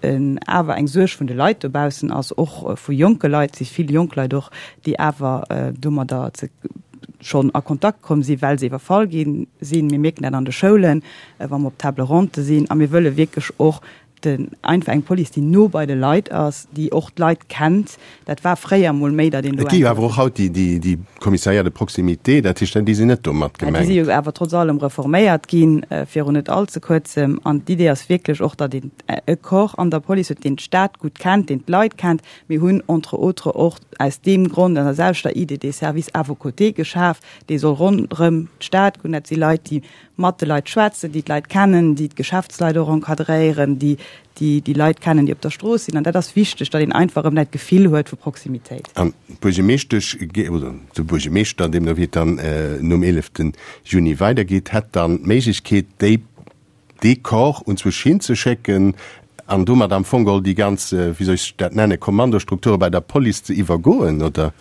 awer eng Suerg vun de Leit dobaussen ass, och vu jonke Leit. Et si vill jonk Leit och, déi awer domadder ze schonn a Kontakt komm sinn, well se iwwerfall gi sinn. Mir mierken dat an de Schoulen, wa mer op Table ronde sinn. A mir wëlle wierklech och den einfach eng Police, déi no bei de Leit ass, déi och d'Leit kennt. Dat war fréier emol méi, datt een do Et gi jo awer och haut déi, déi, déi Commissariats de proximité, dat heescht, déi sinn net do mat gemengt. Déi si jo awer trotz allem reforméiert ginn, virun net all ze kuerzem. An d'Idee ass wierklech och, datt een e Corps an der Police huet, deen d'Stad gutt kennt, deen d'Leit kennt. Mir hunn entre autres och aus deem Grond an der selwechter Idee dee Service à vos côtés geschaf, dee soll ronderëm d'Stad goen. Dat si Leit, déi mat de Leit schwätzen, déi d'Leit kennen, déi d'Geschäftsleit och encadréieren, déi déi Leit kennen, déi op der Strooss sinn. An dat ass wichteg, datt een einfach erëm dat Gefill huet vu Proximitéit. An d'Buergermeeschtesch, oder de Buergermeeschter, deemno wéi et dann nom 11 Juni weidergeet, hätt dann d'Méiglechkeet, déi dee Corps unzwousch hinzeschécken an domat am Fong geholl déi ganz, wéi soll ech dat nennen, Kommandostrukture bei der Police ze iwwergoen, oder?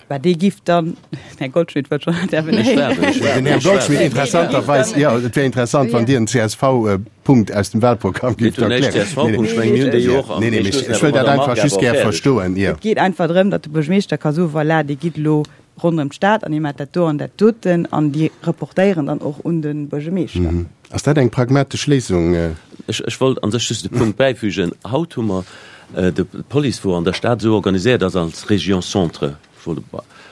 Bah, dee giff dann, den Här Goldschmidt wëllt schonn intervenéieren. Den Här Goldschmidt, interessanterweis, jo, et wär interessant, wann Dir en CSV-Punkt aus dem Wahlprogramm gifft erklären. CSV-Punkt, ech mengen, mir hunn déi jo och am. Nee, nee, mee ech wëll dat einfach just gär verstoen, jo. Et geet einfach drëm, datt de Buergermeeschter ka soen, Voilà, Dir gitt elo ronderëm d'Stad an dir maacht dat do an dat doten an déi reportéieren dann och un de Buergermeeschter. Ass dat eng pragmatesch Léisung? Ech wollt an sech just e Punkt bäifügen. Haut hu mer d'Police, wou an der Stad esou organiséiert ass als Région Centre.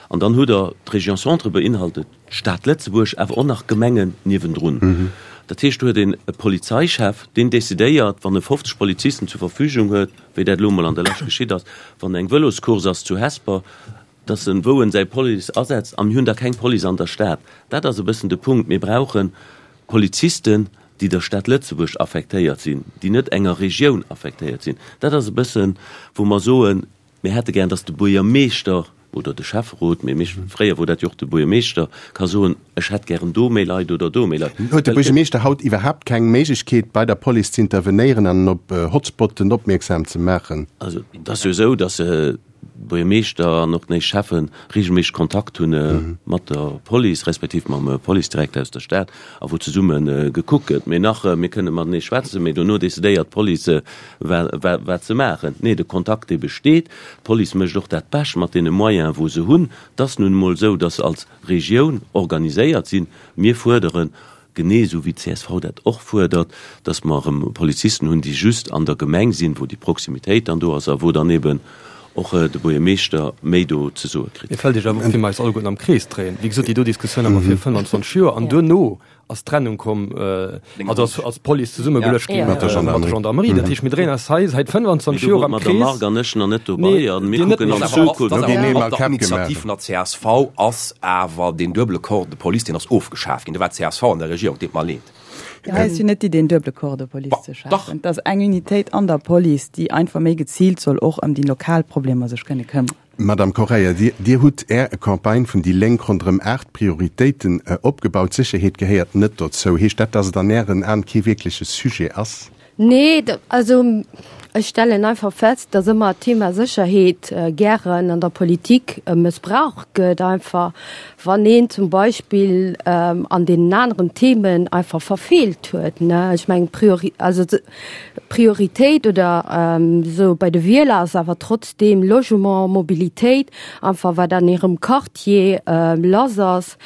An dann hutt Der, d'Région Centre beinhaltet d'Stad Lëtzebuerg, awer och nach Gemengen niewendrun. Dat heescht, do huet een e Polizeichef, deen decidéiert, wann e 50 Polizisten zur Verfügung huet, wéi dat elo emol an der Lescht geschitt ass, wann eng Vëloscourse ass zu Hesper, dass en wou en säi Police asetzt, a mir hunn da keng Police an der Stad. Dat ass e bëssen de Punkt. Mir brauche Polizisten, déi der Stad Lëtzebuerg affektéiert sinn, déi net enger Regioun affektéiert sinn. Dat ass e bëssen, wou mer soen, mir hätte gär, dass de Buergermeeschter oder de Schäfferot, mee méi fréier wor dat jo och de Buergermeeschter, ka soen, ech hätt gären do méi Leit oder do méi Leit. Huet de Buergermeeschter haut iwwerhaapt keng Méiglechkeet, bei der Police ze intervenéieren an op Hotspotten opmierksam ze maachen? Also, et ass jo esou, dass Buergermeeschter an och d'néi Schäffe regelméisseg Kontakt hunn mat der Police, respektiv mam Policedirekter aus der Stad, a wou zesumme gekuckt gëtt. Mee nach, mir kënne matenee schwätzen, mee dono decidéiert d'Police, wat se maachen. Nee, de Kontakt, dee besteet. D'Police mécht och dat Bescht mat deene Moyene wou se hunn. Et ass nun emol esou, datt se als Regioun organiséiert sinn. Mir fuerderen genee esou wéi d'CSV dat och fuerdert, dass mer erëm Polizisten hunn, déi just an der Gemeng sinn, wou déi Proximitéit dann do ass a wou dann eben och de Buergermeeschter méi do ze soe kritt. Mir fält Iech awer op, wéi mer eis alleguerten am Krees dréien. Wéi gesot, déi do Diskussioun hu mer vir 25 Joer an duerno ass d'Trennung komm, also ass ass d'Police zesummegeluecht gi mat der Gendarmerie. Dat heescht, mir dréien eis hei säit 25 Joer am Krees. Mee do wor d'Madame Margue an ech nach net dobei a mir kucken an d'Zukunft. Op der Initiativ vun der csv ass awer deen duebele Corps de Police, deen ass ofgeschaf ginn. Do war d'CSV an der Regierung, deet mer leed. Hei ass jo net d'Idee, en duebele Corps de Police ze schafen. Et ass eng Unitéit an der Police, déi einfach méi geziilt soll och ëm déi lokal Problemer sech kënne këmmeren. Madame Correia, Dir, Dir hutt Är Campagne vun déi Lénk ronderëm 8Prioritéiten opgebaut. D'Sécherheet gehéiert net dozou. Heescht dat, dass et an Ären Aen kee wierkleche Sujet ass? Nee, also ech stellen einfach fest, dass ëmmer d'Thema Sécherheet gären an der Politik mëssbraucht gëtt, einfach wann een zum Beispill an deenen aneren Themen einfach verfeelt huet. Ech mengen, also d'Prioritéit oder esou bei de Wieler ass awer trotzdeem Logement, Mobilitéit, einfach wat an hirem Quartier lass ass.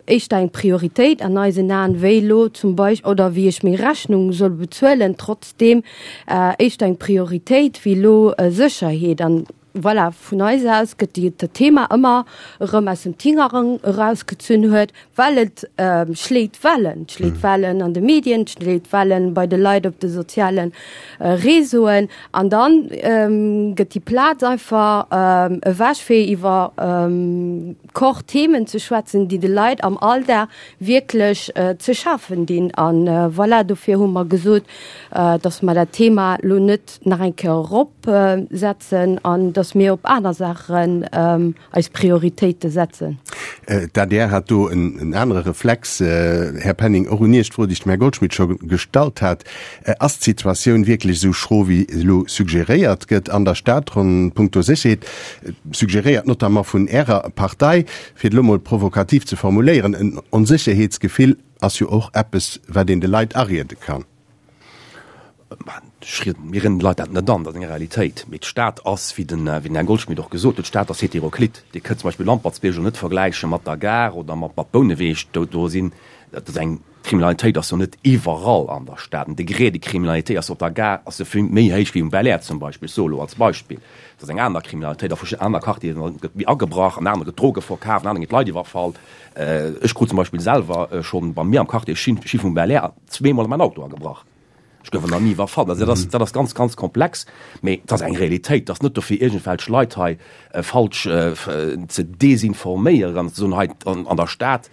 Éischter eng Prioritéit an eisen Aen, wéi elo zum Beispill, oder wéi ech meng Rechnung soll bezuelen, trotzdeem éischter eng Prioritéit wéi elo Sécherheet. An voilà, vun eis aus gëtt déi dat Thema ëmmer erëm aus dem Tingerang erausgezunn huet, well et schléit Wellen, et schléit Wellen an de Medien, et schléit Wellen bei de Leit op de soziale Réseauen. An dann gëtt déi Plaz einfach ewech fir iwwer Kor Themen ze schwätzen, déi de Leit am Alldag wierklech ze schafen dinn. A voilà, dofir hu mer gesot, dass mer dat Thema elo net nach eng Kéier eropsetzen an dass mir op aner Saachen eis Prioritéite setzen. D'adr hat do en anere Reflex. Här Penning, och un Iech d'Fro, déi ech dem Här Goldschmidt scho gestallt hat. Ass d'Situatioun wierklech esou schro, wéi elo suggeréiert gëtt an der Stad ronn punkto Sécherheet, suggeréiert notamment vun Ärer Partei? Fir et elo mol provokativ ze formuléieren, en Onsécherheetsgefill ass jo och eppes, wat een de Leit ariede kann. Mir rieden de Leit dat net an, dat ass eng Realitéit. Mee d'Stad ass, wéi den Här Goldschmidt och gesot huet, d'Stad ass heteroklit. Dir kënnt zum Beispill Lampertsbierg elo net vergläiche mat der Gare oder mat Bouneweg. Do sinn, dat ass eng D'Kriminalitéit ass jo net iwwerall an der Stad. Den Degré de criminalité ass op der Gare ass jo vill méi héich wéi um Belair zum Beispill. Ech soe lo als Beispill. Et ass eng aner Kriminalitéit a verschidden aner Quartieren gëtt méi agebrach, an anere gëtt Droge verkaf, an anere ginn d'Leit iwwerfall. Ech krut zum Beispill selwer schonn bei mir am Quartier Schiff um Belair zweemol a mäin Auto agebrach. Ech gouf nach ni iwwerfall. Also dat ass, dat ass ganz, ganz komplex. Mee et ass eng Realitéit. Et ass net dofir, iergendwelch Leit hei falsch ze desinforméieren an ze soen, hei an der Stad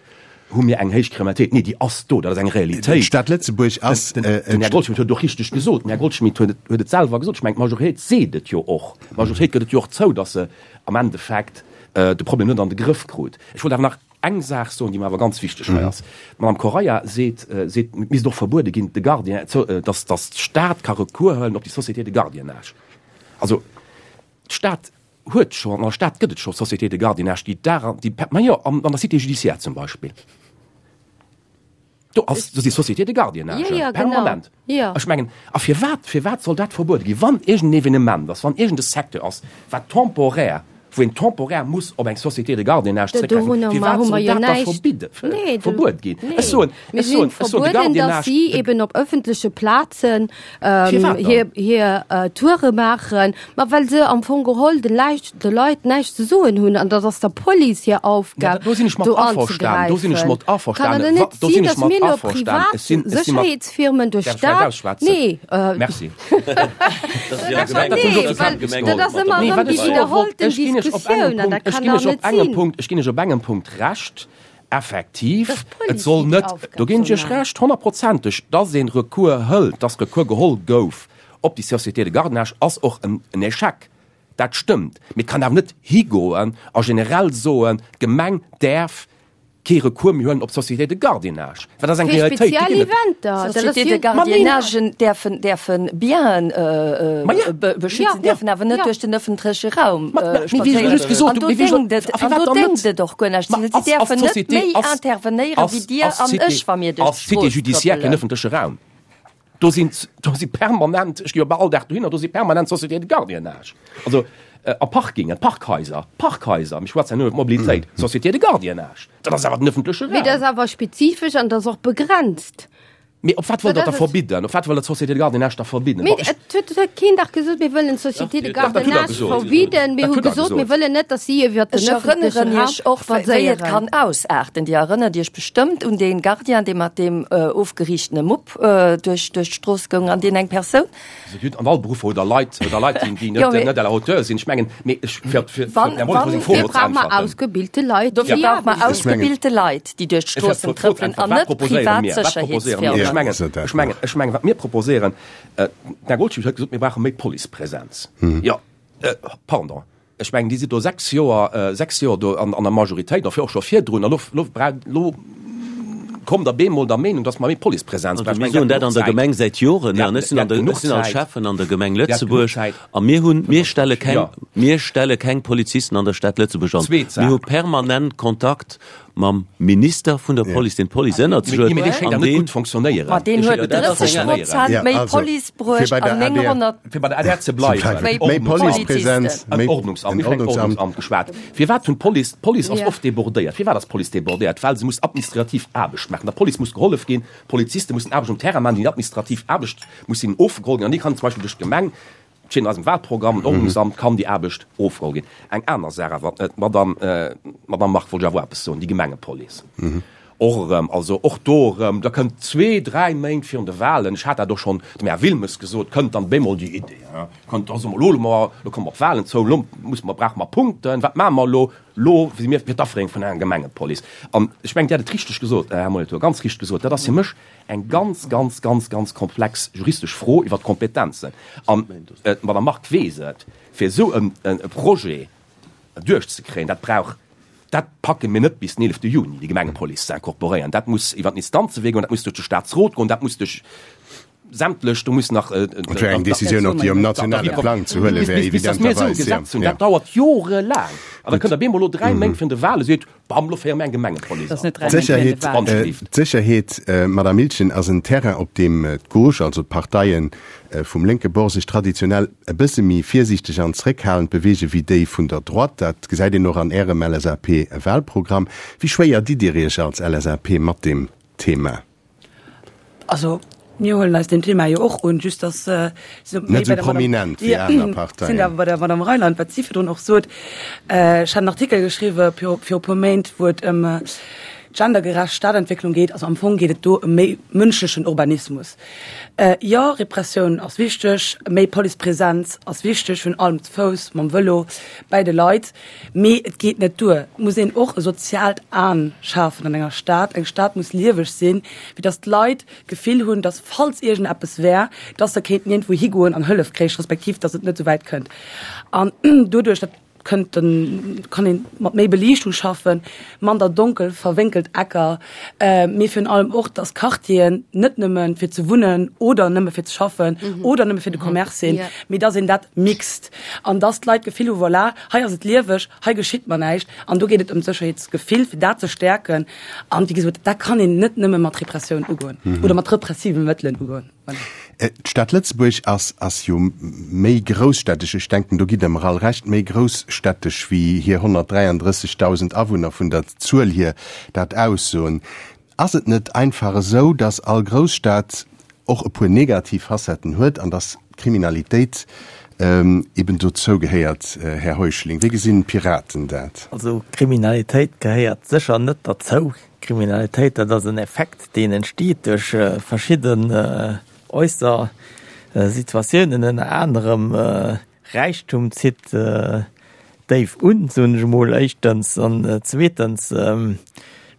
hu mir eng héich Kriminalitéit. Nee, déi ass do. Dat ass eng Realitéit. D'Stad Lëtzebuerg ass. Den Här Goldschmidt huet et och richteg gesot. Den Här Goldschmidt huet et, huet et selwer gesot. Ech mengen, d'Majoritéit seet et jo och. D'Majoritéit gëtt et jo och zou, datt se am Endeffekt de Problem net an de Grëff krut. Ech wollt awer nach Eng Saach soen, déi mer awer ganz wichteg hei ass. D'Madame Correia seet, seet, et misst och verbuede ginn, de Gardien, dass, dass d'Stad ka Recours huelen op déi Société de gardiennage. Also, d'Stad huet scho, an der Stad gëtt et scho Sociétés de gardiennage, déi Dag an, déi, ma jo, an der Cité judiciaire zum Beispill. Do ass, do si Sociétés de gardiennage, Ja, ja, genau. permanent. Ja. Ech mengen, a firwat, firwat soll dat verbuede ginn, wann iergend en Evenement ass, wann iergend e Secteur ass, wat temporär, wou een temporär muss op eng Société de gardiennage Do- zréckgräifen, dorunner firwat hu mer soll jo dat da näischt. verbidde, Nee, do- verbuet ginn? nee. Ech soen, Mir ech soen, sinn ech soen, de verbueden, dass Gardiennage, si de, eben op ëffentleche Plazen ähm, Firwat dann? hir, hir äh, Toure maachen, ma well se am Fong geholl den Läich, de Leit näischt ze soen hunn an dat ass der Police hir Ja, Aufgab, do sinn ech mat do averstanen, do sinn ech anzegräifen. mat Kann et averstanen, net do sinn, sinn ech dass mat mir elo averstanen. privat Ech sinn, ech sinn mat, Sécherheetsfirmen duerch Däerf ech vläicht d'Stad, ausschwätzen? nee, äh, Merci. Nee, well dat ass ëmmer Nee, erëm wat déi ech soe wollt, widderhollten ech ginn iech op engem Diskussioun an Punkt, dat ech kann ginn dach iech op net engem sinn. Punkt, ech ginn iech op engem Punkt Recht, effektiv, Dass et d'Police soll déi net, Aufgab do ginn soll ech iech maachen. Recht, honnertprozenteg, dass een Recours hëlt, dass Recours geholl gouf op déi Société de gardiennage, ass och en Échec. Dat stëmmt. Mee et kann awer net higoen a generell soen, d'Gemeng däerf kee Recours méi huelen op d'Société de gardiennage. Well dat ass eng Fir Realitéit, déi speziell ginn et. Eventer, dat ass Sociétés jo. de gardiennagen däerfen, däerfen Bienen Ma ja. beschützen, Ja. däerfen awer net Ja. duerch den ëffentleche Raum Ma, ma, mee wéi ech just spadséieren. gesot An hunn, do mee wéi ech déngt et, a an firwat do dann net? déngt et och guer näischt. Ma Si ass, ass däerfen net d'Société, méi ass, intervenéieren ass, wéi Dir ass an d'Cité, ech, wa mir duerch ass d'Cité d'Strooss judiciaire keen trëppelen. ëffentleche Raum? Do sinn, do si permanent, ech gi jo bal all Dag dohinner, do si permanent Sociétés de gardiennage. Also a Parkingen, Parkhaiser, Parkhaiser, mir schwätzen ja nur iwwer Mobilitéit, Sociétés de gardiennage, dat ass awer den ëffentleche Mee dat Raum. ass awer spezifesch an dat ass och begrenzt. Mee op wat wëllt Dat Der da ass et. verbidden? Op wat wëllt Der d'Société de gardiennage da verbidden? Mee Bon, ech. et huet huet keen dach gesot, mir wëllen d'Société de Dach, dat hutt Der gardiennage gesot. verbidden. Mir Dat hu hutt Der gesot, mir gesot. wëllen net, datt si iwwer den Ech ëffentleche erënneren Raum Iech och, wéi et spadséieren. kann ausaarten. Dir erënnert Iech bestëmmt un dee Gardien, dee mat deem ofgeriichtene Mupp duerch duerch d'Strooss goung an deen eng Persoun. An all Beruffer hutt Der Leit, hutt Der Leit, déi, déi Jo, net, mee net à la hauteur sinn. Ech mengen, mee ech, fir, fir, fir wann, op Här Wolff wann, seng Fro Dofir elo ze brauche mer äntwerten. ausgebilte Leit, Dofir déi brauche mer Aarbecht. Ech mengen. ausgebilte Leit, déi duerch Ech fir d'Stroossen op d'Fro ze trëppelen an äntweren, wat net proposéiere privat mir? Wat proposéiere mir? Ech Sécherheetsfirmen. mengen, Ja. ech mengen, ech mengen, wat mir proposéieren, den Här Goldschmidt huet gesot, mir brauche méi Policepresenz. Jo, pardon, Ech mengen, Dir sidd do 6 Joer, 6 Joer do an, an der Majoritéit, a och scho virdrun, a lo, lo, lo. Kommt der bemol der Meenung, dass mer méi Policepresenz brauchen? Mir soen dat an der Gemeng säit Joren, an ech sinn an der, ech sinn als Schäffen an der Gemeng Lëtzebuerg, a mir hunn, mir stelle keng, mir stelle keng Polizisten an der Stad Lëtzebuerg an. Mir hu permanent Kontakt mam Minister vun der Police, deen d'Police ënnert sech huet, an deen. Ma deen huet 30 Prozent méi Police bruecht an 900. Fir bei der adr ze bleiwen, méi Policepresenz, méi Ordnungsamt, mir hunn vun Ordnungsamt geschwat. Firwat hunn d'Police, d'Police ass oft débordéiert. Firwat ass d'Police débordéiert? Well se muss administrativ Aarbecht maachen. Der Police muss gehollef ginn, d'Poliziste mussen Aarbecht um Terrain maachen, déi administrativ Aarbecht muss hinnen ofgeholl ginn an déi kann zum Beispill duerch d'Gemeng, steet an eisem Wahlprogramm, d'Ordnungsamt kann déi Aarbecht ofgeholl ginn. Eng aner Saach awer, d'Madame, d'Madame Margue wollt ech awer och eppes soen, déi Gemengepolice. Och erëm, also och do erëm, da kënnt zwee, dräi Méint virun de Wahlen, ech hat dat och schonn dem Här Wilmes gesot, kënnt dann bemol déi Idee, kënnt da soe mer, elo mer, elo komme mer op d'Wahlen zou, elo musse mer, brauche mer Punkten, wat maache mer elo? Elo si mir fir d'Aféierung vun enger Gemengepolice. An ech mengen, Dir hat et richteg gesot, Här Molitor, ganz richteg gesot, dat ass fir mech eng ganz, ganz, ganz, ganz komplex juristesch Fro iwwert d'Kompetenzen. An d'Madame Margue weess et, fir esou e Projet duerchzekréien, dat brauch, dat packe mir net bis den 11 Juni, déi Gemengepolice ze incorporéieren. Dat muss iwwer den Instanzewee goen, dat muss duerch de Staatsrot goen, dat muss duerch sämtlech, do muss nach. Et wär eng Décisioun och, déi um nationale Plang ze huele wär, evidenterweis. Dat dauert jorelaang. An da kënnt der bemol elo dräi Méint virun de Wale, seet, Bam, lo féiere mir eng Gemengepolice an. D'Sécherheet, Madame Miltgen, ass en Terrain, op deem d'Gauche, also d'Parteie vum lénke Bord, sech traditionell e bësse méi virsiichteg an zréckhalend beweege wéi déi vun der Droite. Dat gesäit een och an Ärem LSAP-Wahlprogramm. Wéi schwéier ditt Dir Iech als LSAP mat deem Thema? Also mir huelen eis deem Thema jo och un, just dass net esou prominent wéi aner Parteien. Sinn awer bei der Madame Reyland, wat si virdrun och sot. Ech hat en Artikel geschriwwe viru e puer Méint, wou et ëm gendergerecht Stadentwécklung geet. Also am Fong geet et do ëm méi mënschlechen Urbanismus. Jo, Repressioun ass wichteg, méi Policepresenz ass wichteg, virun allem ze Fouss, mam Vëlo, bäi de Leit. Mee et geet net duer. Et muss een och e soziaalt An schafen an enger Stad. Eng Stad muss lieweg sinn, fir datt d'Leit d'Gefill hunn, datt falls iergendeppes wär, datt se kéinten iergendwou higoen an Hëllef kréich, respektiv datt et net esou wäit kënnt. An doduerch, dat kënnt dann, kann ee mat méi Beliichtung schaffen, mander donkel verwénkelt Ecker, mee virun allem och, datt Quartieren net nëmme fir ze wunnen oder nëmme fir ze schaffen oder nëmme fir de Commerce sinn, mee datt een dat mixt. An dass d'Leit d'Gefill hu, voilà, hei ass et lieweg, hei geschitt mer näischt. An do geet et ëm d'Sécherheetsgefill, fir dat ze stäerken. An wéi gesot, dat kann een net nëmme mat Repressioun ugoen oder mat repressive Mëttelen ugoen. Voilà. D'Stad Lëtzebuerg ass ass jo méi grousstädtesch, ech denken, do gitt Der mer all Recht, méi grousstädtesch wéi hir 133.000 Awunner vun der Zuel hier dat aussoen. Ass et net einfach esou, dass all Grousstad och e puer negativ Facetten huet an dass d'Kriminalitéit eben dozou gehéiert, Här Heuschling? Wéi gesinn d'Piraten dat? Also Kriminalitéit gehéiert sécher net derzou. Kriminalitéit, dat ass en Effekt, deen entsteet duerch verschidden äusser Situatiounen, ënner anerem Räichtum zitt déif un, soen ech emol éischtens. An zweetens,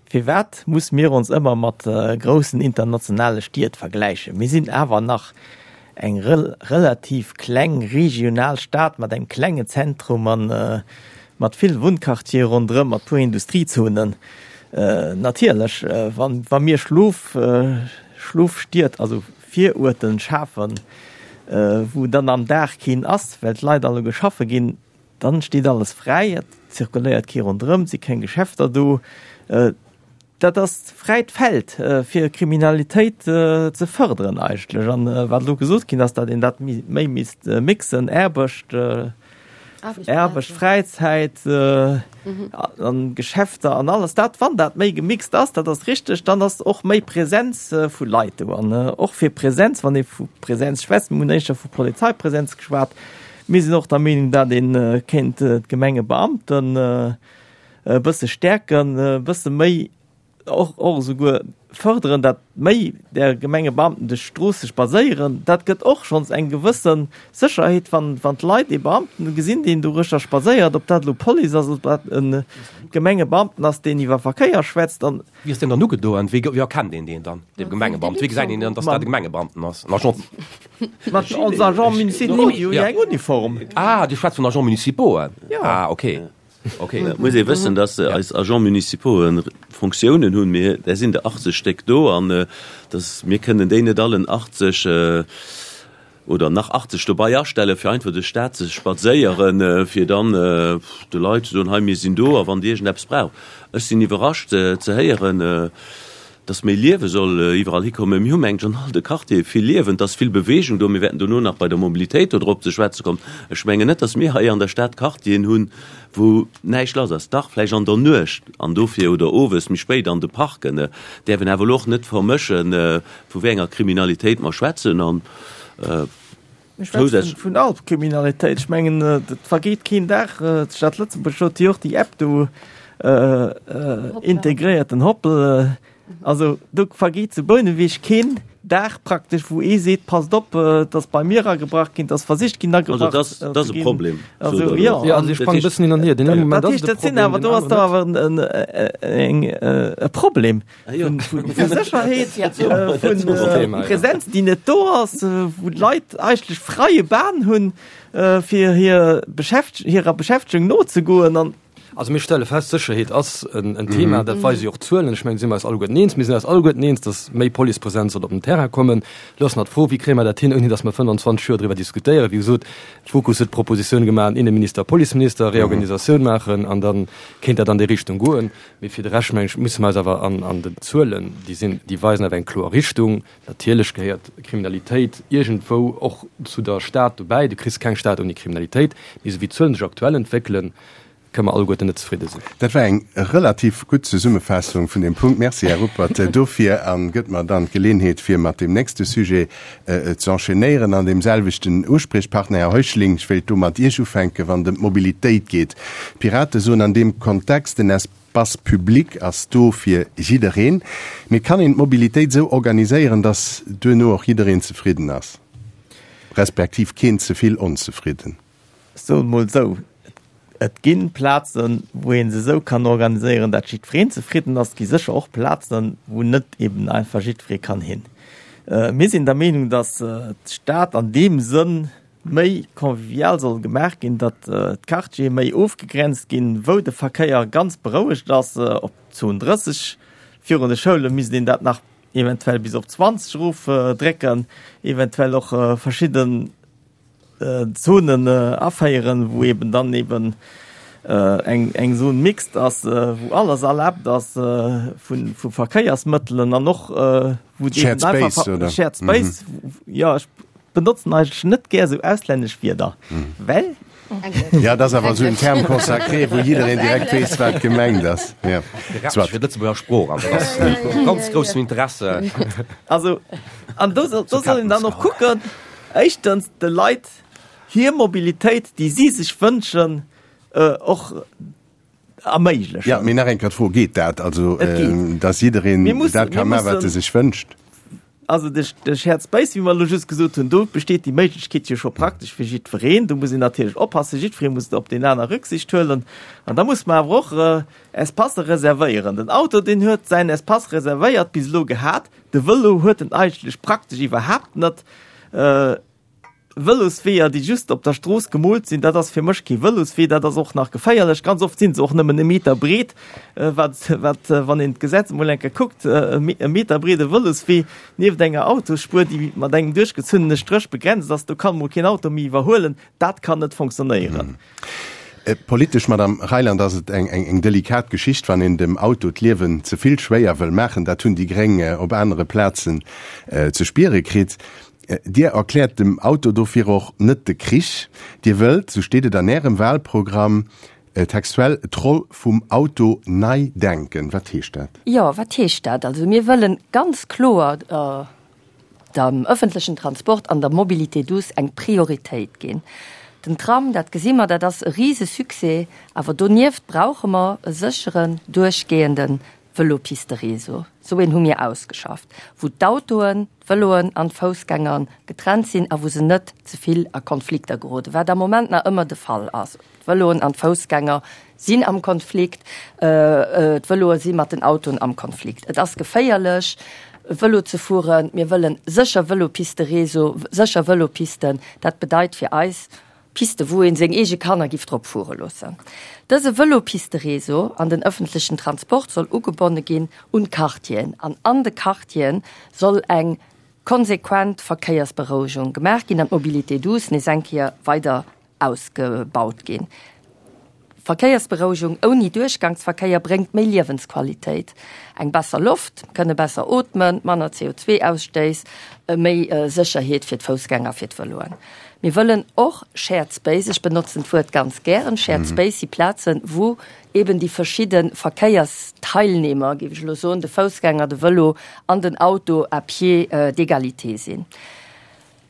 firwat muss mir ons ëmmer mat groussen internationale Stied vergläichen? Mir sinn awer nach eng relativ kleng regional Stad mat engem klengen Zentrum a mat vill Wunnquartiere ronderëm, mat puer Industriezonen. Natierlech, wa mir Schlof, Schlofstied, also Viruerten schafen, wou dann am Dag keen ass, well d'Leit alleguer schaffe ginn, dann steet alles fräi, et zirkuléiert kee ronderëm, et si keng Geschäfter do. Dat ass fräit Feld fir Kriminalitéit ze fërderen eigentlech. An wat elo gesot ginn ass, datt een dat méi misst mixen, Aarbecht, Aarbecht, Fräizäit an Geschäfter an alles dat, wann dat méi gemixt ass, dat ass richteg, dann ass och méi Präsenz vu Leit do. An och fir Präsenz, wann ee vu Präsenz schwätzt, mir hunn éischter vu Polizeipräsenz geschwat, mir sinn och der Meenung, dat ee kéint d'Gemengebeamten e bësse stäerken, e bësse méi och och esouguer fërderen, dat méi där Gemengebeamten duerch d'Stroosse spadséieren, dat gëtt och schonns eng gewësse Sécherheet, wann wann d'Leit ee Beamten gesinn, deen doruechter spadséiert, ob dat elo Police ass, ob dat e Gemengebeamten ass, deen iwwer Verkéier schwätzt an. Wéi ass deen dann ugedoen? Wéi wéi erkennt een deen dann, dee Gemengebeamten? Wéi gesäit een dann, datt dat e Gemengebeamten ass? En Agent? Mat ons Agents municipaux, déi hu jo eng Uniform. Ah, Dir schwätzt vun Agents municipauxen? Jo. Ah, okay. Ok. Et muss ee wëssen, dass eis Agents municipaux Fonctiounen hunn. Mir, där sinn der 80 Stéck do an dass mir kënnen déi net allen 80 oder nach 80 dobei astellen, fir einfach duerch d'Stad ze spadséieren, fir dann de Leit ze soen, hei mir sinn do a wann Dir iergendeppes braucht. Ech sinn iwwerrascht ze héieren, dass méi Liewe soll iwwerall hikommen. Mir hu mengt an all de Quartiere vill Liewen, et ass vill Bewegung do. Mir wäerten dono nach bei der Mobilitéit do drop ze schwätze kommen. Ech mengen net, dass mir hei an der Stad Quartieren hunn, wou näischt lass ass. Dach, vläicht an der Nuecht an dofir oder owes méi spéit an de Parken. Däerf een awer elo och net vermëschen, vu wéi enger Kriminalitéit mer schwätzen. An Mir schwätzen vun all Kriminalitéit. Ech mengen, et vergeet keen Dag, d'Stad Lëtzebuerg huet jo och déi App do integréiert, den Hoppel. Also do vergeet zu Bouneweg keen Dag praktesch, wou ee seet, passt op, et ass bei mir agebrach ginn, et ass versicht ginn agebrach ze ginn. Also dat ass e Problem. Also jo. Jo, also ech sprange e bëssen hin an hier. Den Moment ass et e Problem, den aneren net. Dat awer e Problem. Vun Sécherheet, vun Präsenz, déi net do ass, wou d'Leit eigentlech freie Bahn hunn, fir hir Beschäft hirer Beschäftegung nozegoen an. Also mir stelle fest, Sécherheet ass en Thema, dat weise jo och d'Zuelen. Ech mengen, do si mer eis alleguerten eens. Mir sinn eis alleguerten eens, datt méi Policepresenz soll op den Terrain kommen. Elo ass nach d'Fro, Wéi kréie mer dat hin, ouni datt mer 25 Joer driwwer diskutéieren? Wéi gesot, d'Fokus huet d'Propositioun gemaach, Inneminister, Policeminister, Reorganisatioun maachen an da kéint dat an déi Richtung goen. Mee fir de Rescht, mengen ech, musse mer eis awer an den Zuelen, déi sinn, déi weisen awer eng kloer Richtung. Natierlech gehéiert Kriminalitéit iergendwou och zu der Stad dobäi. Du kriss keng Stad ouni Kriminalitéit. Mee esou wéi d'Zuelen sech aktuell entwéckelen, kënne mer alleguerten net zefridde sinn. Dat war eng relativ gutt Zesummefaassung vun deem Punkt. Merci, Här Ruppert, dofir a gëtt mer dann d'Geleenheet, fir mat deem nächste Sujet ze enchaînéieren an deem selwechten Uspriechpartner. Här Heuschling, ech wéilt do mat Iech ufänken, wann et ëm d'Mobilitéit geet. D'Pirate soen an deem Kontext, den Espace public ass do fir jiddereen. Mee kann een d'Mobilitéit esou organiséieren, datt duerno och jiddereen zefridden ass, respektiv keen ze vill onzefridden? Ech soen emol esou, Et gi Plazen, wou ee se esou kann organiséieren, dat jiddwereen zefridden ass. Et gi sécher och Plazen, wou net eben einfach jiddweree kann hin. Mir sinn der Meenung, datt d'Stad an deem Sënn méi convivial soll gemaach ginn, datt d'Quartiere méi ofgegrenzt ginn, wou de Verkéier ganz berouegt ass. Op Zon 30 virun de Schoule misst een dat nach eventuell bis op 20 erofdrécken, eventuell och verschidden Zonen aféieren, wou eben dann eben eng eng Zone mixte ass, wou alles erlaabt ass vu vu Verkéiersmëttelen an och wou Shared Space, oder? Shared Space, jo ech benotzen eigentlech net gär esou auslännesch Wierder, well. Ja, dat ass awer esou en Terme consacré, wou jiddereen direkt weess, wat gemengt ass. Ja. Soit. Fir d'Lëtzebuerger Sprooch, an dat ass vu ganz groussem Interesse. Also, an do soll do soll een dann och kucken, Éischtens, de Leit hir Mobilitéit, déi si sech wënschen, och erméiglechen. Jo, mee nach eng Kéier d'Fro, Geet dat? Also, dass jiddereen dat ka maachen, wat e sech wënscht? Also de Shared Space, wéi mer elo just gesot hunn, do besteet déi Méiglechkeet jo scho praktesch fir jiddwereen. Do muss een natierlech oppassen, jiddweree muss op deen aner Rücksicht huelen. An da muss mer awer och Espacë reservéieren. Den Auto, deen huet säin Espace reservéiert bis elo gehat. De Vëlo huet en eigentlech praktesch iwwerhaapt net. Vëlosweeër, déi just op der Strooss gemoolt sinn, dat ass fir mech kee Vëloswee, dat ass och nach geféierlech. Ganz oft sinn se och nëmmen e Meter breet, wat, wat, wann een d'Gesetz emol eng Kéier kuckt, e Meter breede Vëloswee nieft enger Autosspuer, déi mat engem duerchgezunnene Stréch begrenzt ass, do kann emol keen Auto méi iwwerhuelen, dat kann net fonctionnéieren. Politesch, Madame Reyland, ass et eng delikat Geschicht, wann een dem Auto d'Liewen ze vill schwéier wëll maachen. Dat hunn déi Gréng op anere Plazen ze spiere kritt. Dir erkläert dem Auto dofir och net de Krich. Dir wëllt, sou steet et an Ärem Wahlprogramm textuell, d'Roll vum Auto nei denken. Wat heescht dat? Jo, wat heescht dat? Also mir wëllen ganz kloer dem ëffentlechen Transport an der Mobilité douce eng Prioritéit ginn. Den Tram, dat gesi mer, dat ass e Risesuccès, awer donieft brauche mer e sécheren, duerchgehende Vëlopisteréseau. Esou een hu mir ausgeschafft, wou d'Autoen, d'Vëloen an d'Foussgänger getrennt sinn a wou se net ze vill a Konflikter geroden, wat am Moment nach ëmmer de Fall ass. D'Vëloen an d'Foussgänger sinn am Konflikt, d'Vëloe si mat den Autoen am Konflikt. Et ass geféierlech, Vëlo ze fueren. Mir wëllen sécher Vëlopisteréseau, sécher Vëlopisten. Dat bedeit fir eis. Piste wou een seng eege Kanner giff drop fuere loossen. Dëse Vëlopistereseau an den ëffentlechen Transport soll ugebonne ginn un d'Quartieren an an de Quartieren soll eng konsequent Verkéiersberouegung gemaach ginn an d'Mobilité douce nees eng Kéier weider ausgebaut ginn. Verkéiersberouegung ouni Duerchgangsverkéier bréngt méi Liewensqualitéit, eng besser Loft, kënne besser ootmen, manner CO2-Ausstéiss, méi Sécherheet fir d'Foussgänger, fir d'Vëloen. Mir wëllen och Shared Space, ech benotzen d'Wuert ganz gären, Shared Space si Plazen, wou eben déi verschidde Verkéiersteilnehmer, géif ech elo soen, de Foussgänger, de Vëlo an den Auto à pied d'égalité sinn.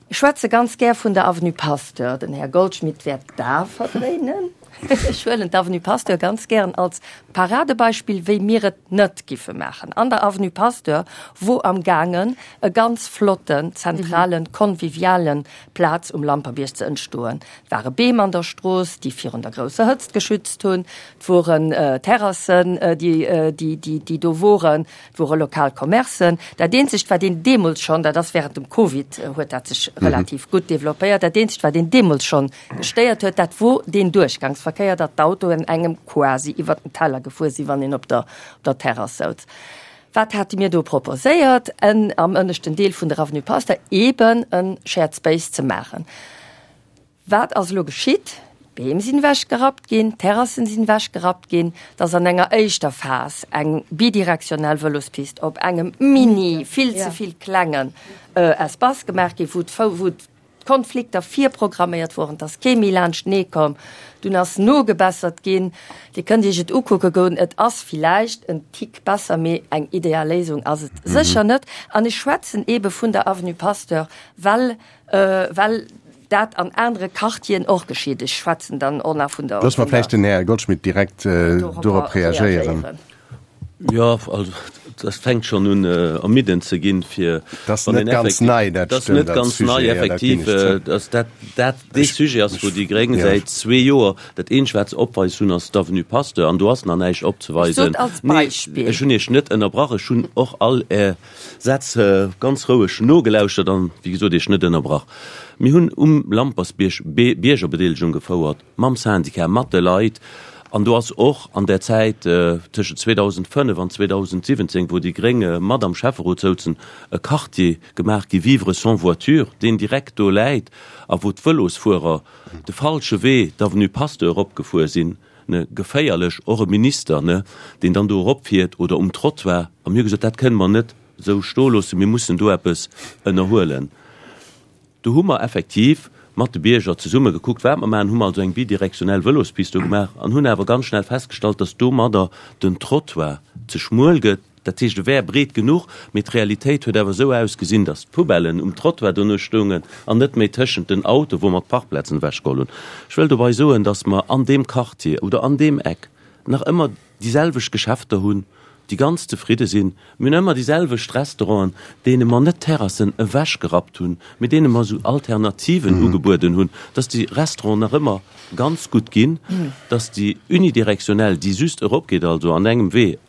Ech schwätze ganz gär vun der Avenue Pasteur. Den Här Goldschmidt wäert d'A verdréinen. Ech huelen d'Avenue Pasteur ganz gären als Paradebeispill, wéi mir et net giffe maachen. An der Avenue Pasteur wor am gaangen e ganz flotten, zentralen, convivialen Plaz um Lamperbiërg ze entstoen. Et ware Beem an der Strooss, déi virun der grousser Hëtzt geschützt hunn. Et woren Terrassen, déi do woren. Et wore lokal Commercen. Dat eenzegt, wat een deemools schonn, dat ass während dem Covid huet dat sech relativ gutt developpéiert, dat eenzegt, wat een deemools schonn gestéiert huet, dat wor deen Duerchgangsverkéier, datt d'Autoen engem quasi iwwert den Teller gefuer sinn, wann een op der, op der Terrass souz. Wat hate mir do proposéiert? En am ënneschten Deel vun der Avenue Pasteur eeben e Shared Space ze maachen. Wat ass elo geschitt? D'Beem sinn ewechgerappt ginn, d'Terrassen sinn ewechgerappt ginn. Et ass an enger éischter Phas eng bidirektionell Vëlospist op engem mini, vill ze vill klengen Espace gemaach ginn, wou d'Konflikter virprogramméiert woren. Et ass kee méi laanschtenee komm. Dunn ass nogebessert ginn. Dir kënnt Iech et ukucke goen. Et ass villäicht en Tick besser, mee eng ideal Léisung ass et sécher net. An ech schwätzen eebe vun der Avenue Pasteur, well well dat an anere Quartieren och geschitt. Ech schwätzen dann och nach vun der. Loosse mer vläicht den Här Goldschmidt direkt dorop reagéieren. Jo, also dat fänkt schonn un ermiddend ze ginn, fir. Dat ass net ganz nei, dat stimmt. Dat ass net ganz nei, effektiv. Dass dat dat dee Sujet ass, wou déi Gréng säit zwee Joer dat eenzegt, wat se opweis hunn, ass d'Avenue Pasteur, an do ass nach näischt opzeweisen. Ech sot als Beispill. Nee, ech hunn Iech net ënnerbrach. Ech hunn och all Är Sätz ganz roueg nogelauschtert an, wéi gesot, Iech net ënnerbrach. Mir hunn um Lampersbierg Biergerbedeelegung gefouert, mam Syndicat, mat de Leit. An do ass och an där Zäit tëschent 2005 an 2017, wou déi Gréng mat am Schäfferot souzen, e Quartier gemaach gi Vivre sans voiture, deen direkt do läit a wou d'Vëlosfuerer de falsche Wee, d'Avenue Pasteur eropgefuer sinn. ne, geféierlech, och e Minister, ne, deen dann do eropfiert oder um Trottoir, a mir hu gesot, dat kënne mer net esou stoe loossen, mir mussen do eppes ënnerhuelen. Do hu mer effektiv mat de Bierger zesumme gekuckt, wat mer maachen, hu mer also eng bidirektionell Vëlospist do gemaach an hunn awer ganz schnell festgestallt, dass domadder den Trottoir ze schmuel gëtt. Dat heescht, e wär breet genuch, mee d'Realitéit huet awer esou ausgesinn, datt d'Poubellen um Trottoir dono stoungen an net méi tëschent den Autoen, wou mer d'Parkplazen ewechgeholl hunn. Ech wëll dobei soen, datt mer an deem Quartier oder an deem Eck nach ëmmer déi selwecht Geschäfter hunn, déi ganz zefridde sinn. Mir hunn ëmmer déi selwecht Restauranten, deene mer net d'Terrassen ewechgerappt hunn, mee deene mer esou Alternativen ugebueden hunn, datt déi Restauranten nach ëmmer ganz gutt ginn, datt déi unidirektionell, déi just eropgeet, also an engem Wee,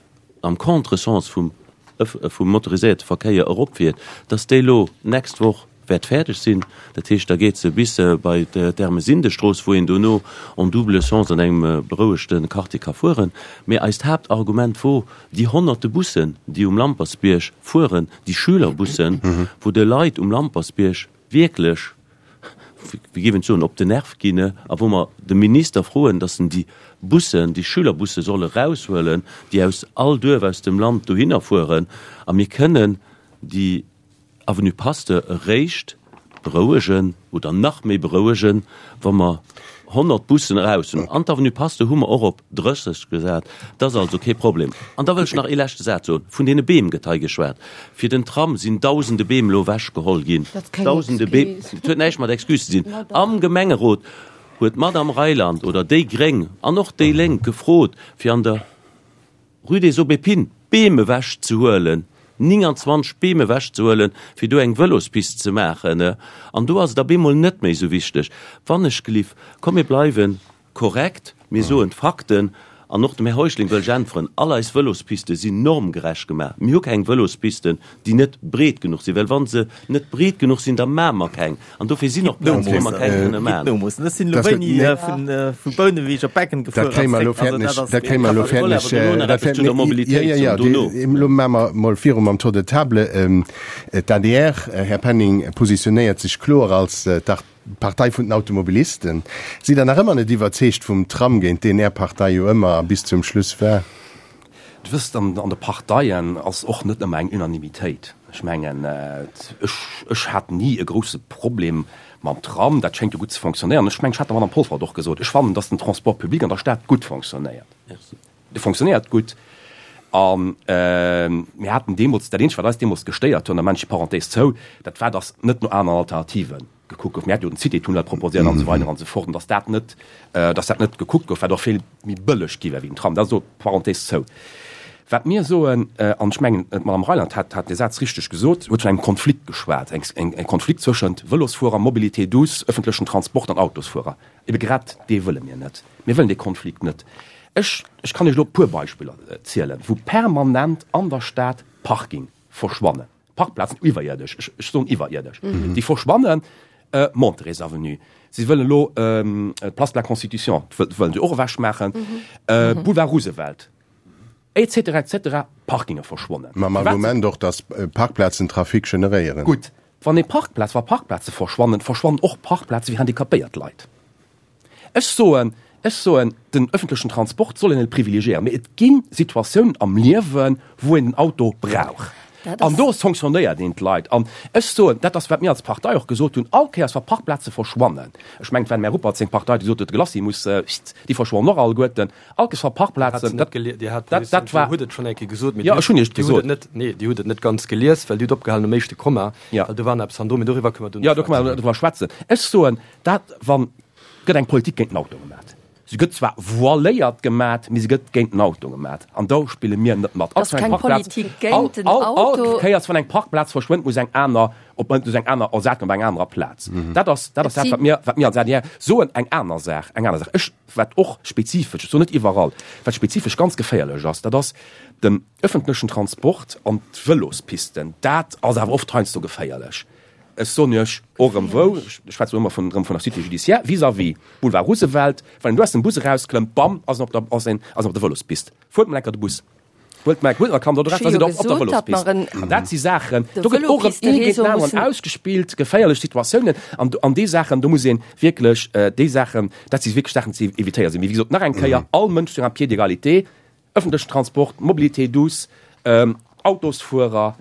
am Contresens vum vum motoriséierte Verkéier eropfiert, dass déi elo d'nächst Woch wäert fäerdeg sinn. Dat heescht, da geet se bis bei d'Ermesindestrooss, wou een dono en double sens an engem berouegte Quartier ka fueren. Mee eist Haaptargument wor déi honnerte Bussen, déi um Lampertsbierg fueren, déi Schülerbussen, wou de Leit um Lampertsbierg wierklech, wéi géif een et soen, op den Nerv ginn a wou mer de Minister froen, datt en déi Bussen, déi Schülerbusse soll eraushuelen, déi aus all Duerf aus dem Land dohinner fueren. A mir kënnen déi Avenue Pasteur eréischt berouegen oder nach méi berouegen, wa mer 100 Bussen eraus hunn. An d'Avenue Pasteur hu mer och op 30 gesat. Dat ass also kee Problem. An da wëll ech nach ee leschte Saz soen. Vun deene Beem gëtt hei geschwat. Fir den Tram sinn dausende Beem elo ewechgeholl ginn. Dausende Beem. Et huet näischt mat Excuse ze dinn. Am Gemengerot huet d'Madame Reyland oder déi Gréng an och déi Lénk gefrot, fir an der Rue des Aubépines Beem ewechzehuelen, 29 Beem ewechzehuelen, fir do eng Vëlospist ze maachen. An do ass et op eemol net méi esou wichteg. Wannechgelift, komm mir bleiwe korrekt, mir soen d'Fakten. An och dem Här Heuschling wëll ech äntweren, All eis Vëlospiste sinn normgerecht gemaach. Mir hu keng Vëlospisten, déi net breet genuch sinn, well wa se net breet genuch sinn, da maache mer keng. An dofir sinn och Plazen, wou mer keng kënne maachen. Ech sinn elo wéini vu Bouneweg op Becken gefuer Dat kréie mer elo fäerdeg, dat kréie mer elo fäerdeg. Dat fäert, jo, jo, jo, elo maache mer mol viru mam Tour de table. D'ADR, Här Penning, positionéiert sech kloer als d'Partei vun den Automobilisten. Sidd Der nach ëmmer net iwwerzeegt vum Tram, géint deen Är Partei jo ëmmer a bis zum Schluss war? Dir wësst, an de Parteien ass och net ëmmer eng Unanimitéit. Ech mengen, ech, ech hat ni e grousse Problem mam Tram. Dat schéngt jo gutt ze fonctionnéieren. Ech mengen, ech hat der Madame Polfer et och gesot, ech fannen, datt den Transport public an der Stad gutt fonctionnéiert. Dee fonctionnéiert gutt. A mir haten deemools, dat Eenzegt, wat eis deemools gestéiert huet, an da maachen ech déi Parenthèse zou, dat war, datt net no aneren Alternative gekuckt gouf. Mir haten jo den Cité-Tunnel proposéiert an esou weider an esou fort, an datt dat net, datt dat net gekuckt gouf, wat och vill méi bëlleg gi wär wéi den Tram. Dat ass elo d'Parenthèse zou. Wat mir soen, an ech mengen, d'Madame Reyland hat, hat dee Saz richteg gesot, huet vun engem Konflikt geschwat, eng, eng Konflikt zwëschent Vëlosfuerer, Mobilité douce, öffentlechen Transport an Autosfuerer. Ebe grad dee wëlle mir net. Mir wëllen dee Konflikt net. Ech, ech kann Iech elo e puer Beispiller zielen, wou permanent an der Stad Parking verschwannen, Parkplazen iwwerierdesch, ech, ech soen iwwerierdesch, déi verschwannen. Monterey's Avenue, si wëllen elo d'Place de la Constitution wëllen se och ewechmaachen, Boulevard Roosevelt, et cetera, et cetera, Parkinge verschwonnen. Mam Argument och, datt Parkplazen Trafic generéieren. Gutt, wann ee Parkplaz, wa Parkplaze verschwannen, verschwannen och Parkplaze fir handicapéiert Leit. Ech soen, ech soen, den öffentlechen Transport soll een net privilegiéieren, mee et gi Situatiounen am Liewen, wou een den Auto brauch. An do sanctionnéiert een d'Leit. An ech soen, dat ass, wat mir als Partei och gesot hunn, all Kéiers, wa Parkplaze verschwannen, ech mengen, et war dem Här Ruppert seng Partei, déi gesot huet, de Glacis muss, déi verschwannen och alleguerten, all Kéiers, wa Parkplazen, dat, dat, dat war. Dir hutt et schonn eng Kéier gesot, mee Jo, ech hunn Iech Dir hutt et net, nee, Dir hutt et net ganz gelies, well Dir hutt opgehalen um éischte Komma, well do war nach eppes hannendru, mee doriwwer kënne mer duerno schwätzen. Jo, do kënne mer driwwer schwätzen. Ech soen, dat, wann, gëtt eng Politik géint den Auto gemat. Se gëtt zwar voiléiert gemat, mee se gëtt géint den Auto gemat. An do spille mir net mat. Ass keng Politik géint den Auto. All Kéiers, wann eng Parkplaz verschwënnt, muss eng aner op, muss eng aner ersat ginn op enger anerer Plaz. Dat ass, dat ass dat, wat mir, wat mir als adr soen. Eng aner Saach, eng aner Saach, ech, wat och spezifesch, ech soen net iwwerall, wat spezifesch ganz geféierlech ass, dat ass den öffentlechen Transport an d'Vëlospisten. Dat ass awer oft heiansdo geféierlech. Ech soen Iech och erëm wou, ech schwätzen elo ëmmer vun, erëm vun der Cité judiciaire, vis-à-vis Boulevard Roosevelt, wann een do aus dem Bus erausklëmmt, bam, ass en op der, ass een, ass en op der Vëlospist. Fuert mol enker de Bus. Huelt mol, huelt mol Kand oder Ech da hu sidd jo Der op, op der gesot, datt mer Vëlospist. en An dat si Saachen, de do gëtt och erëm ee géint Vëlopisteréseau den aneren mussen. ausgespillt, geféierlech Situatiounen. An do, an déi Saachen, do muss ee wierklech, déi Saachen, dat si wierklech Saachen, déi ze évitéieren sinn. Mee wéi gesot, nach eng Kéier, all Mënsch sur un pied d'égalité, Ëffentlechen Transport, Mobilité douce, Autosfuerer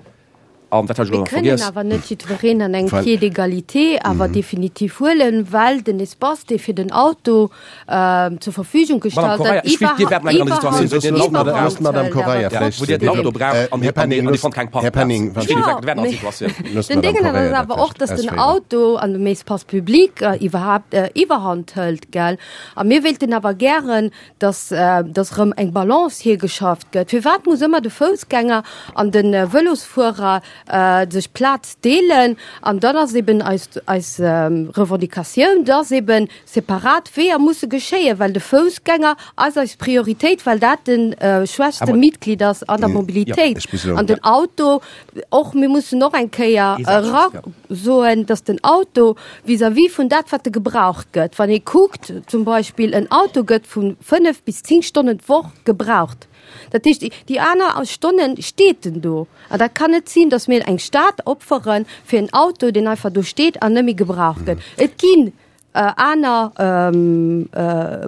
an wat hat ech elo Mir nach kënnen vergiess? awer net jiddwereen an engem Pied d'égalité awer definitiv huelen, well den Espace, dee fir den Auto zur Verfügung Madame gestallt Correia, gëtt, ech weess, Dir wäert nach eng aner iwwerhand, Situatioun, wou Dir den Auto iwwerhand braucht. Madame hëlt. Correia, Awer vläicht Wou Dir den Auto braucht an Här Dir, an Penning, Dir loosst, fannt keng Här Parkplaz. Penning, Ech weess, Dir wäert Jo, an mee Situatioun. loosst den d'Madame Déngen ass Correia dat awer och, vläicht dass den ausféieren. Auto an dem Espace public iwwerhaapt iwwerhand hëlt, gell. A mir wéilten awer gären, dass dass erëm eng Balance hiergeschafft gëtt. Firwat muss ëmmer de Foussgänger an de Vëlosfuerer sech d'Plaz deelen? An dann ass eben eis eis Revendicatioun, dass eben separat Weeër musse geschéien, well de Foussgänger ass eis Prioritéit, well dat de schwächste Mitglied ass an der Mobilitéit. An den Auto och, mir mussen och eng Kéier era soen, dass den Auto vis-à-vis vun dat, wat e gebraucht gëtt, wann ee kuckt, zum Beispill en Auto gëtt vu 5 bis 10 Stonnen d'Woch gebraucht. Dat heescht, déi aner Stonne steet en do. An dat kann net sinn, dass mir eng Stad opfere fir en Auto, deen einfach do steet an net méi gebraucht gëtt. Et ginn aner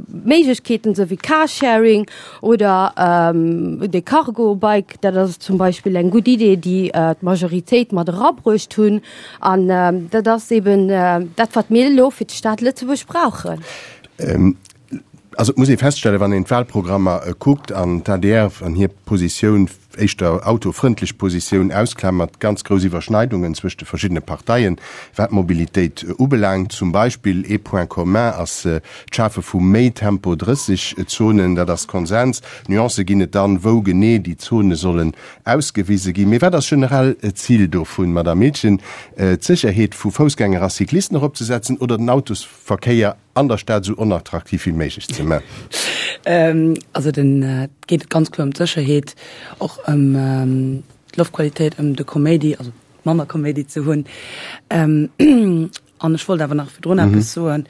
Méiglechkeeten, esou wéi Carsharing oder de Cargo-Bike, dat ass zum Beispill eng gutt Idee, déi d'Majoritéit mat erabruecht hunn. An dat ass eben dat, wat mir elo fir d'Stad Lëtzebuerg brauchen. Also et muss ee feststellen, wann een d'Wahlprogrammer kuckt an d'ADR an hir Positioun. éischter autofrëndlech Positioun ausklamert, ganz grouss Iwwerschneidungen zwëscht de verschiddene Parteien, wat d'Mobilitéit ubelaangt. Zum Beispill ee Point commun ass d'Schafe vu méi Tempo 30 Zonen, dat ass Konsens. Nuancë ginn et dann, wou genee déi Zone sollen ausgewise ginn. Mee wat ass generell d'Zil dovun, Madamm Miltgen? D'Sécherheet vu Foussgänger a Cyclisten eropzesetzen oder den Autosverkéier an der Stad esou onattraktiv wéi méiglech ze man? Also den, et geet ganz kloer ëm d'Sécherheet, och ëm d'Loftqualitéit, ëm de Koméidi, also manner Koméidi ze hunn. An ech wollt awer nach virdrun eppes soen.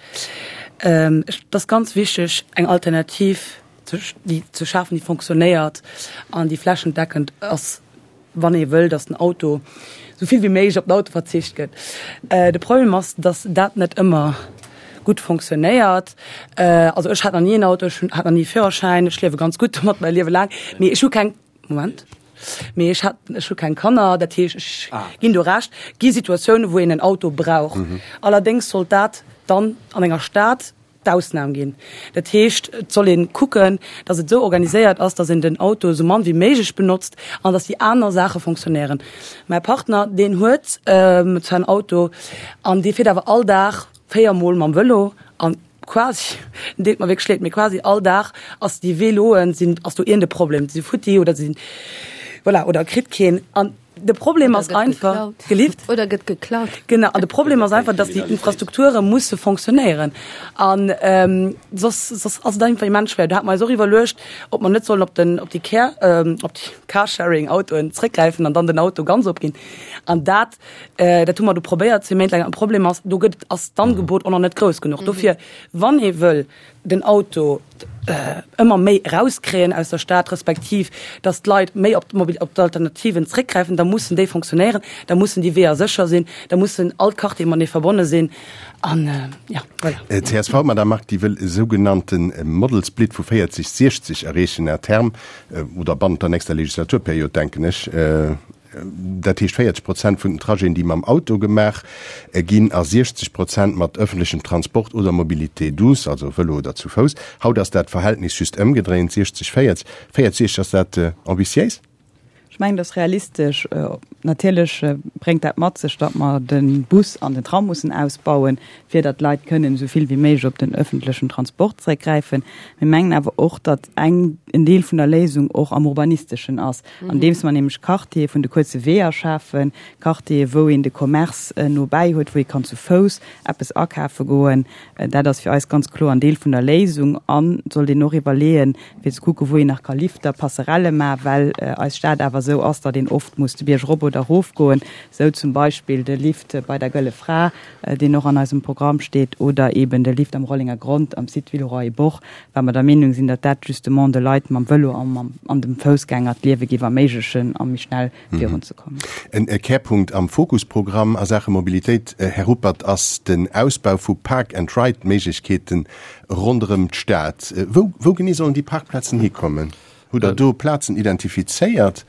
Ech, et ass ganz wichteg, eng Alternativ ze, déi ze schafen, déi fonctionnéiert an déi flächendeckend ass. wann ee wëll, datt den Auto esou vill wéi méiglech op den Auto verzicht gëtt. De Problem ass, datt dat net ëmmer gutt fonctionnéiert. Also ech hat nach ni en Auto, ech hat nach ni e Führerschäin, ech liewe ganz gutt domat mäi Liewe laang, mee ech hu keng, Moment, mee ech hat, ech hu keng Kanner, dat heescht ech ginn do Recht, gi Situatiounen, wou een en Auto brauch. Allerdéngs sollt dat dann an enger Stad d'Ausnam ginn. Dat heescht, et soll ee kucken, datt et esou organiséiert ass, datt een den Auto esou mann wéi méiglech benotzt an datt déi aner Saache fonctionnéieren. Mäi Partner, deen huet zwar en Auto an dee fiert awer all Dag 4 Mol mam Vëlo an quasi, en deet mer wierklech leed, mee quasi all Dag ass déi Véloen sinn, ass do iergend e Problem, si futti oder si voilà, oder kritt keen an. De Problem ass einfach gelift oder gëtt geklaut. Genau an de Problem ass einfach, dass déi Infrastrukture musse fonctionnéieren an ähm, soss, soss ass et einfach immens schwer. Do hat mer eis och iwwerluecht, ob mer net sollen op den op déi Care ähm, op déi Carsharing-Autoen zréckgräifen an dann den Auto ganz opginn. An dat äh, dat hu mer do probéiert zwee Méint laang. An Problem ass, do gëtt ass d'Angebot och nach net grouss genuch. Dofir wann ee wëll den Auto ëmmer méi erauskréien aus der Stad, respektiv datt d'Leit méi op op d'Alternativen zréckgräifen, da mussen déi fonctionnéieren, da mussen déi Weeër sécher sinn, da mussen all d'Quartiere matenee verbonne sinn an jo, voilà. Csv, Madame Margue, déi wëll e sougenannte Model Split vu 40, 60 erreechen à terme oder bannent der nächster Legislaturperiod, denken ech. Dat heescht 40 Prozent vun den Trajeten, déi mam Auto gemaach ginn a 60 Prozent mat ëffentlechem Transport oder Mobilité douce, also Vëlo oder zu Fouss. Haut ass dat Verhältnis just ëmgedréint, 60, 40. 40, 60, ass dat ambitiéis? Ech mengen, dat ass realistesch. Natierlech bréngt dat mat sech, datt mer de Bus an den Tram mussen ausbauen, fir datt d'Leit kënnen esou vill wéi méiglech op den ëffentlechen Transport zréckgräifen. Mir mengen awer och, datt eng, en Deel vun der Léisung och am Urbanisteschen ass, andeems mer nämlech Quartiere vun de kuerze Weeër schafen, Quartiere wou een de Commerce no bäi huet, wou ee kann zu Fouss eppes akafe goen. Dat ass fir eis ganz kloer en Deel vun der Léisung. An et sollt een och iwwerleeën, fir ze kucken, wou een nach ka Lifter, Passerelle maachen, well eis Stad awer esou ass, datt een oft muss de Bierg erop oder erof goen, esou zum Beispill de Lift bei der Gëlle Fra, deen och an eisem Programm steet, oder eeben de Lift am Rollenger Grond am Site Villeroy-et-Boch, well mer der Meenung sinn, datt dat justement de Leit mam Vëlo a mam an dem Foussgänger d'Liewe géif erméiglechen a méi schnell virunzekommen. En Kärpunkt am Fokusprogramm a Saache Mobilitéit, Här Ruppert, ass den Ausbau vu Park-and-Ride-Méiglechkeeten ronderëm d'Stad. Wou, wou genee sollen déi Parkplazen hikommen? Hutt Der do Plazen identifizéiert?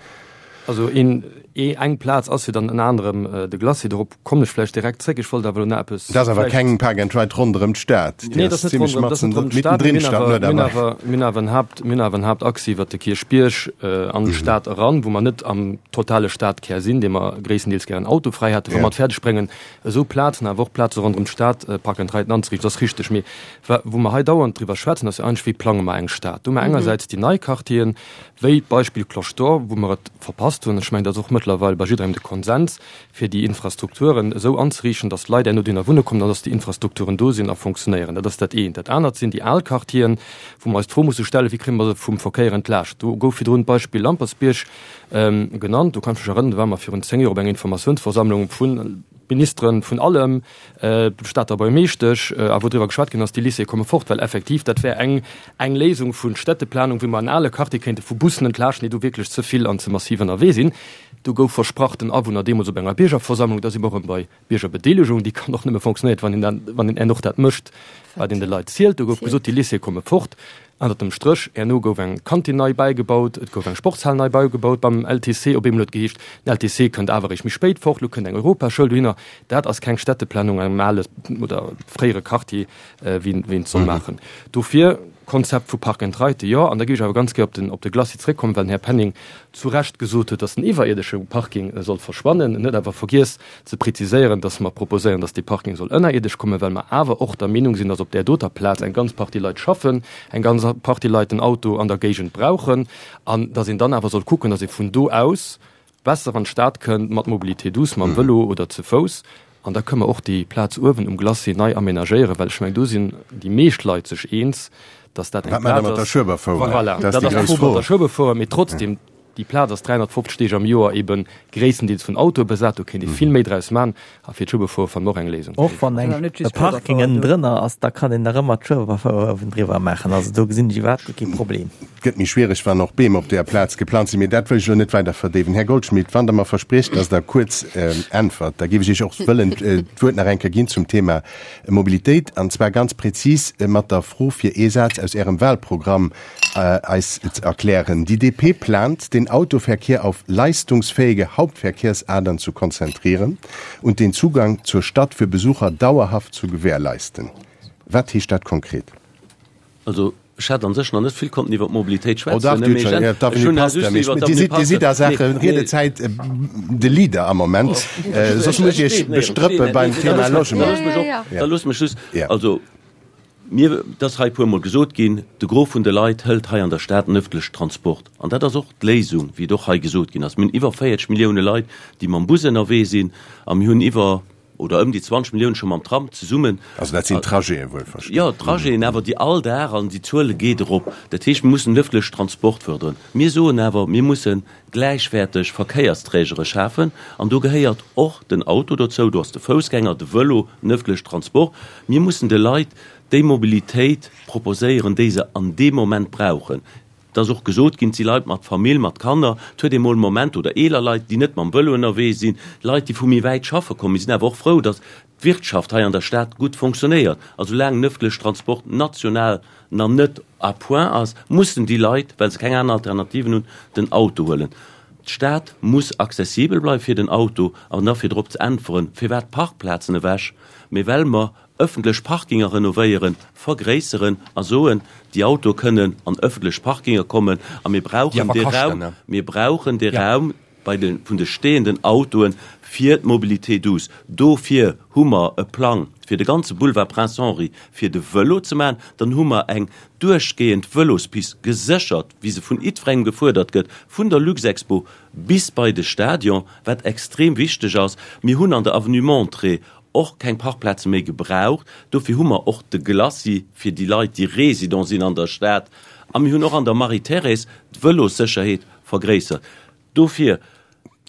Also een, ee, eng Plaz ass jo dann ënner anerem de Glacis. Dorop kommen ech vläicht direkt zréck. Ech wollt awer elo nach eppes. Dat ass awer keng Park and Ride ronderëm d'Stad. Nee, dat ass net ronderëm, dat ass net ronderëm d'Stad. Mir hunn awer, mir hunn awer, mir hunn awer en Haupt, mir hunn awer en Hauptachse iwwert de Kierchbierg an d'Stad eran, wou mer net am totale Stadkär sinn, dee mer gréisstendeels gären autofräi hätten, wa mer et fäerdeg bréngen, esou Plazen, awer och Plaze ronderëm d'Stad Park and Riden anzeriichten. Dat ass richteg. Mee Wa wou mer hei dauernd driwwer schwätzen, ass jo eigentlech, wéi plange mer eng Stad? Do hu mer engersäits déi nei Quartieren, wéi d'Beispill Cloche d'Or, wou mer et verpasst hunn, ech mengen, dat ass och mëttlerweil bei jidderengem de Konsens, fir déi Infrastrukturen esou anzeriichten, datt d'Leit herno dohinner wunne kommen an datt déi Infrastrukturen do sinn a funktionéieren. Dat ass dat eent. Dat anert sinn déi al Quartieren, wou mer eis d'Fro musse stellen, wéi kréie mer se vum Verkéier entlaascht? Do gouf virdrun d'Beispill Lampertsbierg genannt. Do kann ech mech erënnern, do ware mer virun 10 Joer op enger Informatiounsversammlung vu Ministeren, vun allem, Stater Buergermeeschtesch, a wou driwwer geschwat ginn ass, déi Lycéeë komme fort, well effektiv dat wär eng eng Léisung vu Städteplanung, wéi mer en ale Quartier kéinte vu Bussen entlaaschten, déi do wierklech ze vill an ze massiv ënnerwee sinn. Do gouf versprach den Awunner deemools op enger Biergerversammlung, da si mer erëm bei Biergerbedeelegung, déi kann och nëmme fonctionnéiert, wann een dat, wann een och dat mécht, wat een de Leit zielt. Do gouf gesot, déi Lycéeë komme fort. Ënnert dem Stréch, herno gouf eng Kantin nei bäigebaut, et gouf eng Sportshal nei bäigebaut beim LTC. Op eemol huet et geheescht, den LTC kënnt awer eréischt méi spéit fort, elo kënnt eng Europaschoul dohinner. Dat ass keng Städteplanung an engem ale oder fréiere Quartier, wéi een et soll maachen. Dofir. Konzept vu Park and Ride, jo. An da géif ech awer ganz gär op den, op de Glacis zréckkommen, well den Här Penning zu Recht gesot huet, dass den iwwerierdesche Parking soll verschwannen. En huet awer vergiess ze preziséieren, dass mer proposéieren, dass dee Parking soll ënnerierdesch kommen, well mer awer och der Meenung sinn, dass op där doter Plaz eng ganz Partie Leit schaffen, eng ganz Partie Leit den Auto an der Géigend brauchen an dass een dann awer soll kucken, dass ee vun do aus besser an d'Stad kënnt mat Mobilité douce, mam Vëlo oder ze Fouss. An da kënne mer och déi Plaz uewen um Glacis nei amenagéieren, well ech mengen, do sinn déi meescht Leit sech eens, dass dat eng Wat maacht Der Plaz mat der ass. Schueberfouer? Voilà, Dat ass dat déi ass grouss d'Fro Fro. mat der Schueberfouer. Mee trotzdem, déi Plaz ass 350 Deeg am Joer ebe gréisstendeels vun Autoe besat. Do kéint ee vill méi draus maachen. A fir d'Schueberfouer fanne mer och eng Léisung. Och wann eng e Parking ënnendrënner ass, da kann een nach ëmmer d'Schueberfouer uewendriwwer maachen. Also do gesinn ech iwwerhaapt guer kee Problem. Et gëtt méi schwiereg, wann och Beem op deeër Plaz geplant sinn. Mee dat wëll ech elo net weider verdéiwen. Här Goldschmidt, wann Der mer verspriecht, dass Der kuerz äntwert, da géif ech Iech och wëllen d'Wuert nach eng Kéier ginn zum Thema Mobilitéit, an zwar ganz prezis mat der Fro, fir ee Saz aus Ärem Wahlprogramm eis ze erklären, Die DP plant, den Autoverkehr auf leistungsfähige Hauptverkehrsadern zu konzentrieren und den Zugang zur Stadt für Besucher dauerhaft zu gewährleisten. Wat heescht dat konkret? Also, ech hat an sech nach net vill konnten iwwer d'Mobilitéit Oh dach, schwätzen, Dir mee hutt ech schon, ech d'Avenue hunn Pasteur, just mee iwwer Dir d'Avenue sidd, Dir sidd a Pasteur, Saache nee, nee. Riedezäit de Leader am Moment, soss muss ech Iech bestrëppe beim Thema Logement. Da loosst mech och, da loosst mech just, also mir, et ass hei e puermol gesot ginn, de Gros vun de Leit hëlt hei an der Stad den ëffentlechen Transport. An dat ass och d'Léisung, wéi et och hei gesot ginn ass. Mir hunn iwwer 40 Millioune Leit, déi mam Bus ënnerwee sinn, a mir hunn iwwer, oder ëm déi 20 Milliounen scho mam Tram zesummen. Also dat sinn d'Trajeten wuelverstinn. Jo, d'Trajeten, awer déi all Dag, an déi Zuele geet erop. Dat heescht, mir mussen den ëffentlechen Transport fërderen. Mir soen awer, mir musse gläichwäerteg Verkéiersträgere schafen, an do gehéiert och den Auto dozou, do ass de Foussgänger, de Vëlo, den ëffentlechen Transport. Mir mussen de Leit déi Mobilitéit proposéieren, déi se an deem Moment brauchen. Et ass och gesot ginn, et si Leit mat Famill, mat Kanner, et huet ee mol Moment, oder eeler Leit, déi net mam Vëlo ënnerwee sinn, Leit, déi vu méi wäit schaffe kommen. Mir sinn awer och frou, datt d'Wirtschaft hei an der Stad gutt fonctionnéiert. A soulaang den ëffentlechen Transport national nach net à point ass, mussen déi Leit, well se keng aner Alternativen hunn, den Auto huelen. D'Stad muss accessibel bleiwe fir den Auto. An da fir drop ze äntweren, firwat d'Parkplazen ewech, mee well mer Ëffentlech Parkinger renovéieren, vergréisseren a soen, déi Autoe kënnen an ëffentlech Parkinger kommen a mir brauchen dee Raum, mir brauchen dee Raum bei de, vun de stehenden Autoe fir d'Mobilité douce. Dofir hu mer e Plang fir de ganze Boulevard Prince Henri fir de Vëlo ze maachen. Dann hu mer eng duerchgehend Vëlospist geséchert, wéi se vun jiddwerengem gefuerdert gëtt, vun der Luxexpo bis bei de Stadion, wat extrem wichteg ass. Mir hunn an der Avenue Montré och keng Parkplaze méi gebraucht. Dofir hu mer och de Glacis fir déi Leit, déi Résident sinn an der Stad. A mir hunn och an der Marie-Thérèse d'Vëlossécherheet vergréissert. Dofir,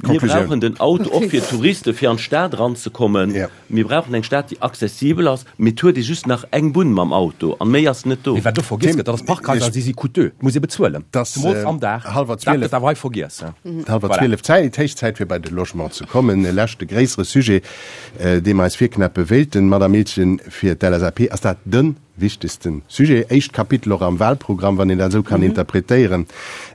mir brauchen den Auto och fir d'Touriste fir an d'Stad eranzekommen. Mir brauchen eng Stad, déi accessibel ass. Mee et huet ee just nach eng Bunn mam Auto an méi ass net do. Mee wat do vergiess gëtt, dat ass d'Parkhaiser, si si coûteux, et muss ee bezuelen, zemools am Dag. Dat gëtt awer hei vergiess. Hallwer 12, Zäit, héich Zäit fir bei de Logement ze kommen. E leschte gréissere Sujet, dee mer eis virknäppe wéilten, Madame Miltgen, fir d'LSAP ass dat de wichtegste Sujet, éischt Kapitel och am Wahlprogramm, wann een dat esou kann interpretéieren.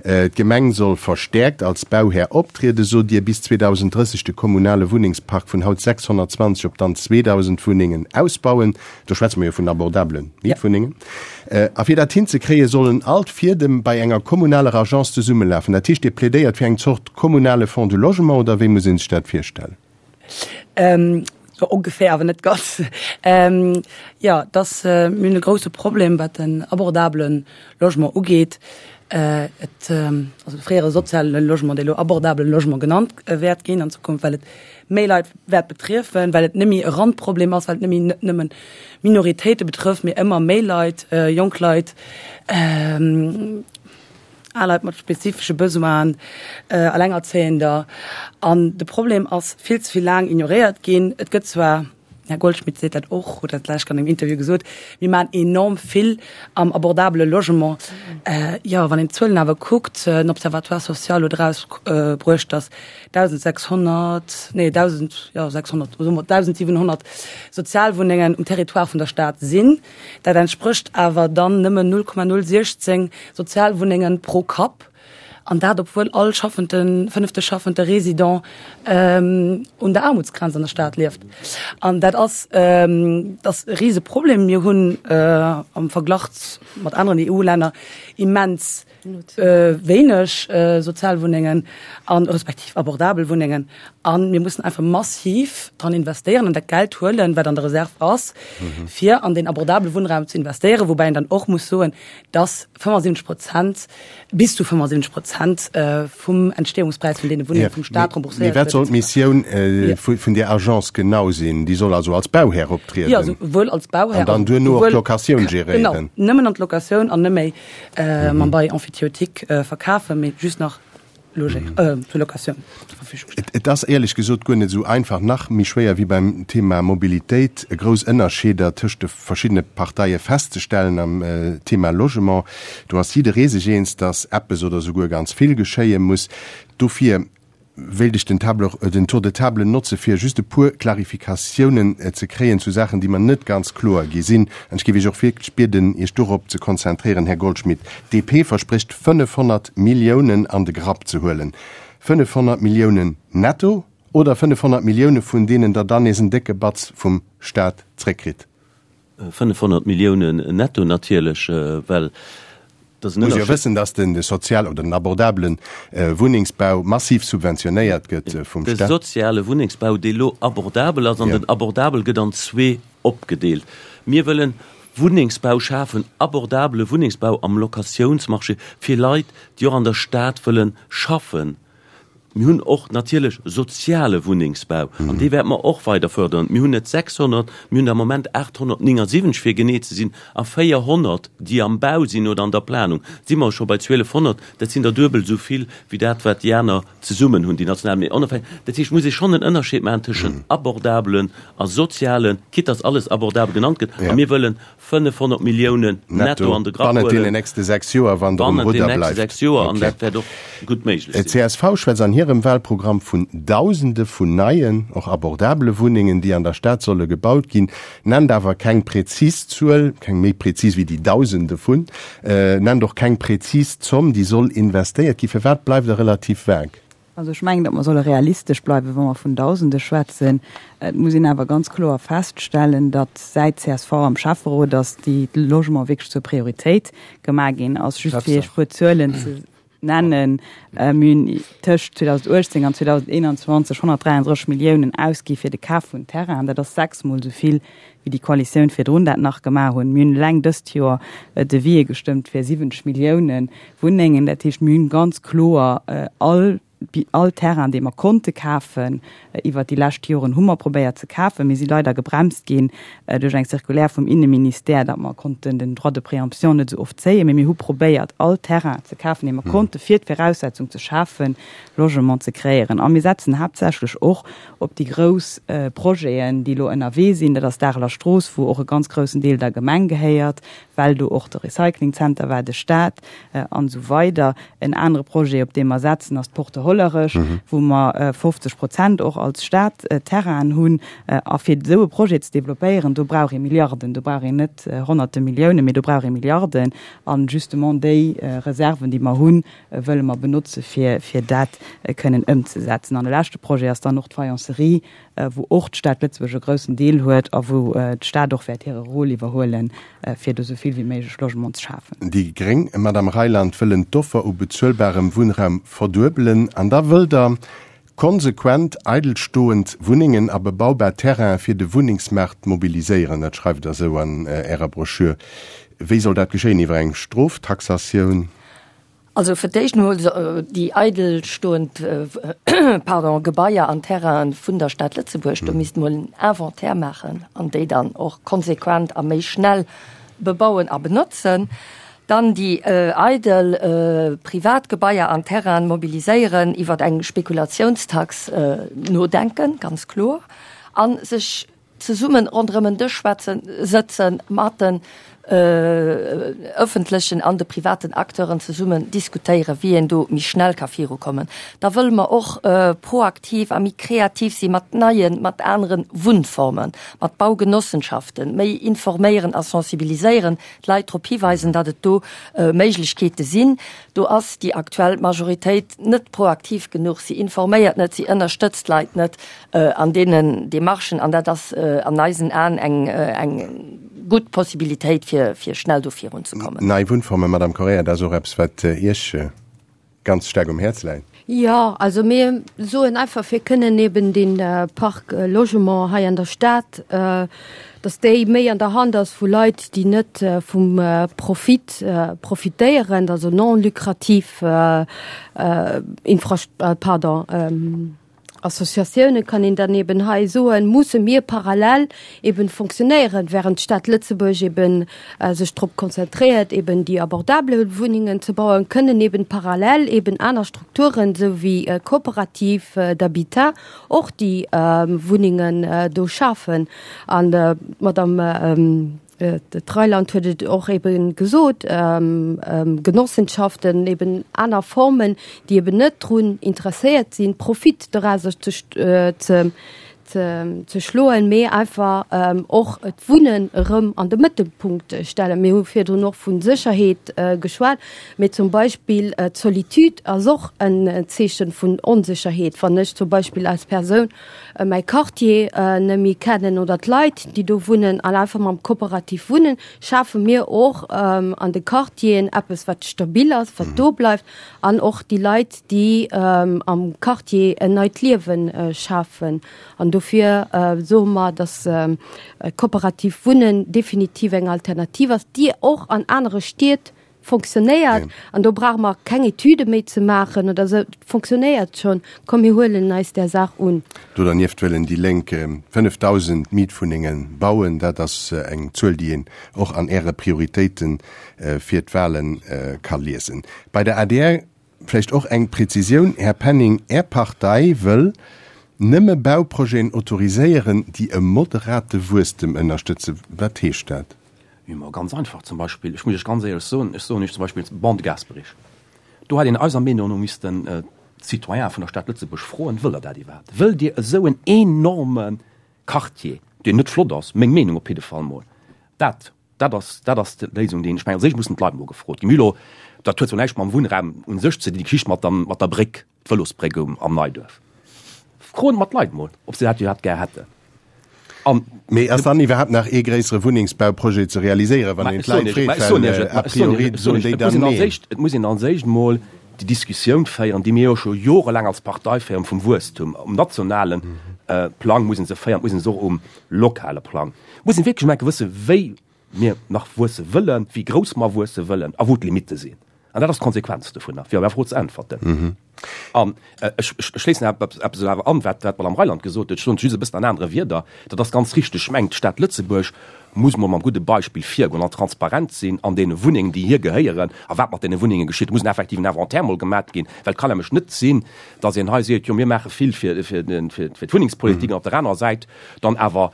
D'Gemeng soll verstäerkt als Bauhär optrieden, sot Dir, bis 2030 de kommunale Wunnengspark vun haut 620 op dann 2.000 Wunnengen ausbauen. Do schwätze mer jo vun abordabele Mietwunnengen. A fir dat hinzekréien, sollen all d'Fiedem bei enger kommunaler Agence zesummelafen. Dat heescht, Dir plädéiert fir eng Zort kommunale Fonds du logement, oder wéi muss ee sech dat virstellen? Ähm, so ongeféier, awer net ganz. Ähm, ja, dass äh, mir hunn e grouse Problem, wat den abordabele Logement ugeet. Äh, et, ähm, also de fréiere soziale Logement, dee elo abordabele Logement genannt äh, wäert ginn an Zukunft, well et méi Leit wäert betriefen, well et net méi e Randproblem ass, well et net méi net nëmmen Minoritéite betrëfft, mee ëmmer méi Leit, äh, jonk Leit, ähm, Al Leit mat spezifesche Besoinen, Allengerzéiender. An de Problem ass vill ze vill laang ignoréiert ginn. Et gëtt zwar, den Här Goldschmidt seet dat och, huet dat d'lescht an engem Interview gesot, mir maachen enorm vill am abordabele Logement. Jo, wann een d'Zuelen awer kuckt, den Observatoire social huet erausbruecht, datt 1.600, nee, 1.000, jo, 600, soe mer 1.700 Sozialwunnengen um Territoire vun der Stad sinn. Dat entsprécht awer dann nëmmen 0,016 Sozialwunnengen pro Kapp. An dat obwuel all schaffenden, fënnefte schaffende Résident un der Aarmutsgrenz an der Stad lieft. An dat ass, dat ass e rise Problem. Mir hunn am Verglach mat aneren EU-Länner immens wéineg Sozialwunnengen a respektiv abordabel Wunnengen. A mir mussen einfach massiv dran investéieren an dat Geld huelen, wat an der Reserve ass, fir an deen abordabele Wunnraum ze investéieren. Woubäi een dann och muss soen, dass 75 Prozent, bis zu 75 Prozent vum Entstehungspräis vun deene Wunnenge vum Staat rembourséiert gëtt. Mee wat soll d'Missioun vun där Agence genau sinn? Déi soll also als Bauhär optrieden? Jo, souwuel als Bauhär. An dann duerno och d'Locatioun geréieren? Genau, nëmmen an d'Locatioun an net méi mam Bail emphytéotique verkafen, mee just nach zur Locatioun zur Verfügung stellen. Et ass éierlech gesot guer net esou einfach, nach méi schwéier wéi beim Thema Mobilitéit, grouss Ënnerscheeder tëscht de verschiddene Parteie festzestellen am Thema Logement. Do ass jidderee sech eens, datt eppes oder souguer ganz vill geschéie muss. Dofir wéilt ech den Table, den Tour de table notze fir just e puer Klarifikatiounen ze kréien zu Saachen, déi mer net ganz kloer gi sinn. An ech géif Iech och wierklech bieden, Iech dorop ze konzentréieren, Här Goldschmidt. D'DP versprécht 500 Milliounen an de Grapp ze huelen. 500 Milliounen netto oder 500 Millioune vun deenen Der dann nees en décke Batz vum Staat zréckkritt? 500 Milliounen netto natierlech, well dat ass en Muss jo wëssen, datt den sozial oder den abordabelen Wunnengsbau massiv subventionéiert gëtt vum Staat. De soziale Wunnengsbau, dee lo abordabel ass, an den abordabel gëtt an zwee opgedeelt. Mir wëllen Wunnengsbau schafen, abordabele Wunnengsbau am Locatiounsmarché fir Leit, déi och an der Stad wëllen schaffen. Mir hunn och natierlech soziale Wunnengsbau an dee wäerte mer och weider fördern. Mir hunn net 600, mir hunn der am Moment 879, fir genee ze sinn, a 400, déi am Bau sinn oder an der Planung, si mer scho bei 1.200. Dat sinn der duebel esou vill wéi dat, wat déi aner zesummen hunn, déi national. Mee onofhängeg, dat heescht, et muss ee schonn en Ënnerscheed maachen tëschent abordabelen a sozialen, quitte dass alles abordabel genannt gëtt. A mir wëllen 500 Milliounen netto an de Grapp huelen. Bannent deenen nächste 6 Joer, wann Der um Rudder bleift. Bannent den nächste 6 Joer, an dat wäert och gutt méiglech sinn. D'CSV schwätzt an hirem Wahlprogramm vun Dausende vun neien, och abordabele Wunnengen, déi an der Stad solle gebaut ginn, nennt awer keng prezis Zuel, keng méi prezis wéi déi Dausende vun, nennt och keng prezis Zomm, déi soll investéiert ginn. Firwat bleift Der relativ vague? Also ech mengen, datt mer solle realistesch bleiwen, wa mer vun Dausende schwätzen. Et muss een awer ganz kloer feststellen, datt säit csv am Schäfferot ass, déi Logement wierklech zur Prioritéit gemaach ginn ass. Just fir Iech e puer Zuelen ze nennen, Mir hunn tëscht 2018 an 2021 133 Milliounen ausgi fir de Kaf vun Terrainen. Dat ass sechsmol esou vill wéi déi Koalitioun virdrun dat nach gemaach hunn. Mir hunn eleng dëst Joer Devisë gestëmmt fir 70 Millioune Wunnengen. Dat heescht, mir hunn ganz kloer all, all Terrain, dee mer konnte kafen iwwert déi lescht Joren, hu mer probéiert ze kafen. Mir si leider gebremst ginn duerch eng Circulaire vum Inneministère, datt mer konnten den Droit de préemption net esou oft zéien. Mee mir hu probéiert, all Terrain ze kafen, dee mer konnten, fir d'Viraussetzung ze schafen, Logement ze kreéieren. A mir setzen haaptsächlech och op déi grouss Projeten, déi elo ënnerwee sinn. Dat ass d'Areler Strooss, wou och e ganz groussen Deel der Gemeng gehéiert, well do och de Recyclingzenter war, de Staat an esou weider. En anere Projet, op dee mer setzen, ass d'Porte Hollerech, wou mer 50 Prozent och als Stad Terrainen hunn. A fir esou e Projet ze developpéieren, do brauch ee Milliarden, do brauch een net Honnerte Milliounen, mee do brauch ee Milliarden. A justement déi Reserven, déi mer hunn, wëlle mer benotze fir fir dat kënnen ëmzesetzen. An de leschte Projet ass dann och d'Faïencerie, wou och d'Stad Lëtzebuerg e groussen Deel huet a wou d'Stad och wäert hire Rôle iwwerhuelen, fir do esou vill wéi méiglech Logement ze schafen. Déi gréng, Madame Reyland, wëllen d'Offer u bezuelbarem Wunnraum verduebelen. An da wëllt Der konsequent eidelstoend Wunnengen a bebaubar Terrainen fir de Wunnengsmaart mobiliséieren. Dat schreift Der esou an Ärer Broschür. Wéi soll dat geschéien? Iwwer eng Stroftaxatioun? Also fir d'éischt emol déi eidelstoend, pardon, Gebaier an Terrainen vun der Stad Lëtzebuerg, do misst emol en Inventaire maachen an déi dann och konsequent a méi schnell bebauen a benotzen. Dann déi eidel privat Gebaier an Terrainen mobiliséieren, iwwer eng Spekulationstax nodenken, ganz kloer, a sech zesummen ronderëm en Dësch schwätzen, sëtzen mat de. Ëffentlechen an de privaten Acteuren zesummen diskutéieren, wéi een do méi schnell ka virukommen. Da wëlle mer och proaktiv a méi kreativ si mat neien, mat anere Wunnformen, mat Baugenossenschaften, méi informéieren a sensibiliséieren, d'Leit drop hiweisen, datt et do Méiglechkeete sinn. Do ass déi aktuell Majoritéit net proaktiv genuch. Si informéiert net, si ënnerstëtzt d'Leit net an deenen Demarchen an dat ass an eisen Aen eng, eng gutt Possibilitéit, fir, fir schnell do virunzekommen. Nei Wunnformen, Madame Correia, dat ass och eppes, wat Iech ganz staark um Häerz läit. Jo, also mir soen einfach, fir kënnen eben dee Parc Logement hei an der Stad, dass déi méi an der Hand ass vu Leit, déi net vum Profit profitéieren, also non lucrativ Infra-, pardon, Associatioune kann een dann eben hei soen, musse mir parallel eben fonctionnéieren, während d'Stad Lëtzebuerg eben sech drop konzentréiert, eben déi abordable Wunnengen ze bauen, kënnen eben parallel eben aner Strukturen, esou wéi Coopératives d'habitat, och déi Wunnengen do schafen. An d'Madame D'Reiland huet et och eben gesot, Genossenschaften, eben aner Formen, déi eben net drun interesséiert sinn, Profit dorauser ze ze schloen, mee einfach och d'Wunnen erëm an de Mëttelpunkt stellen. Mir hu virdrun och vu Sécherheet geschwat, mee zum Beispill d'Solitude ass och en Zeeche vun Onsécherheet. Wann ech zum Beispill als Persoun mäi Quartier net méi kennen oder d'Leit, déi do wunnen an einfach mam Kooperativ wunnen, schafe mir och an de Quartieren eppes, wat stabil ass, wat do bleift an och déi Leit, déi am Quartier en neit Liewe schafen. An dofir soe mer, dass kooperativ Wunnen definitiv eng Alternativ ass, déi och an anere Stied Fonctionnéiert, an do brauche mer keng Etüde méi ze maachen oder esou, et fonctionnéiert schonn, komm mir huelen eis där Saach un. Do dernieft wëllen déi Lénk 5.000 Mietwunnenge bauen. Dat ass eng Zuel, déi een och an Äre Prioritéite fir d'Wale ka liesen. Bei der adr vläicht och eng Präzisioun, Här Penning, Är Partei wëll nëmme Bauprojeten autoriséieren, déi e moderate Wuesstem ënnerstëtzen. Wat heescht dat? Jo, ma ganz einfach, zum Beispill, ech muss Iech ganz éierlech soen, ech soen Iech zum Beispill d'Bande de Gasperich, do hätt een eiser Meenung no missten d'Citoyene vun der Stad Lëtzebuerg froen, Wëllt Der dat iwwerhaapt? Wëllt Dir esou en enorme Quartier, deen net flott ass, meng Meenung op jidde Fall mol, dat, dat ass, dat ass d'Léisung, déi een, ech mengen, als éischt mussen d'Leit mol gefrot ginn. Mir hu lo, dat huet zwar näischt mam Wunnraum u sech ze dinn, déi Geschicht mat der, mat der Bréck, D'Vëlosbréck um am Neiduerf. Froen mer d'Leit mol, ob se dat iwwerhaapt gär hätten. An. Mee ass dann iwwerhaapt nach ee gréissere Wunnengsbauprojet ze realiséieren, wann een d'Leit freet? Well a priori soen déi dann neen. Et muss een als éischt mol déi Diskussioun féieren, déi mir jo scho jorelaang als Partei féieren, vum Wuesstum. Um nationale Plang muss ee se féieren, et muss ee se och um lokale Plang. Et muss een wierklech emol enke wëssen, wéi mir nach wuesse wëllen, wéi grouss mer wuesse wëllen a wou d'Limitte sinn. An dat ass d'Konsequenz dovunner, fir op Är Fro ze äntwerten. An ech schléissen eppes awer an, wat d'Madame Reyland gesot huet, ech soen et just e bëssen an anere Wierder, dat ass ganz richteg. Ech mengen, d'Stad Lëtzebuerg muss mol mam gudde Beispill virgoen an transparent sinn an deene Wunnengen, déi hir gehéieren a wat mat deene Wunnenge geschitt. Et muss en effektiven Inventaire mol gemat ginn, well et kann nämlech net sinn, datt een hei seet, jo mir maache vill fir d'Wunnengspolitik an op der anerer Säit dann awer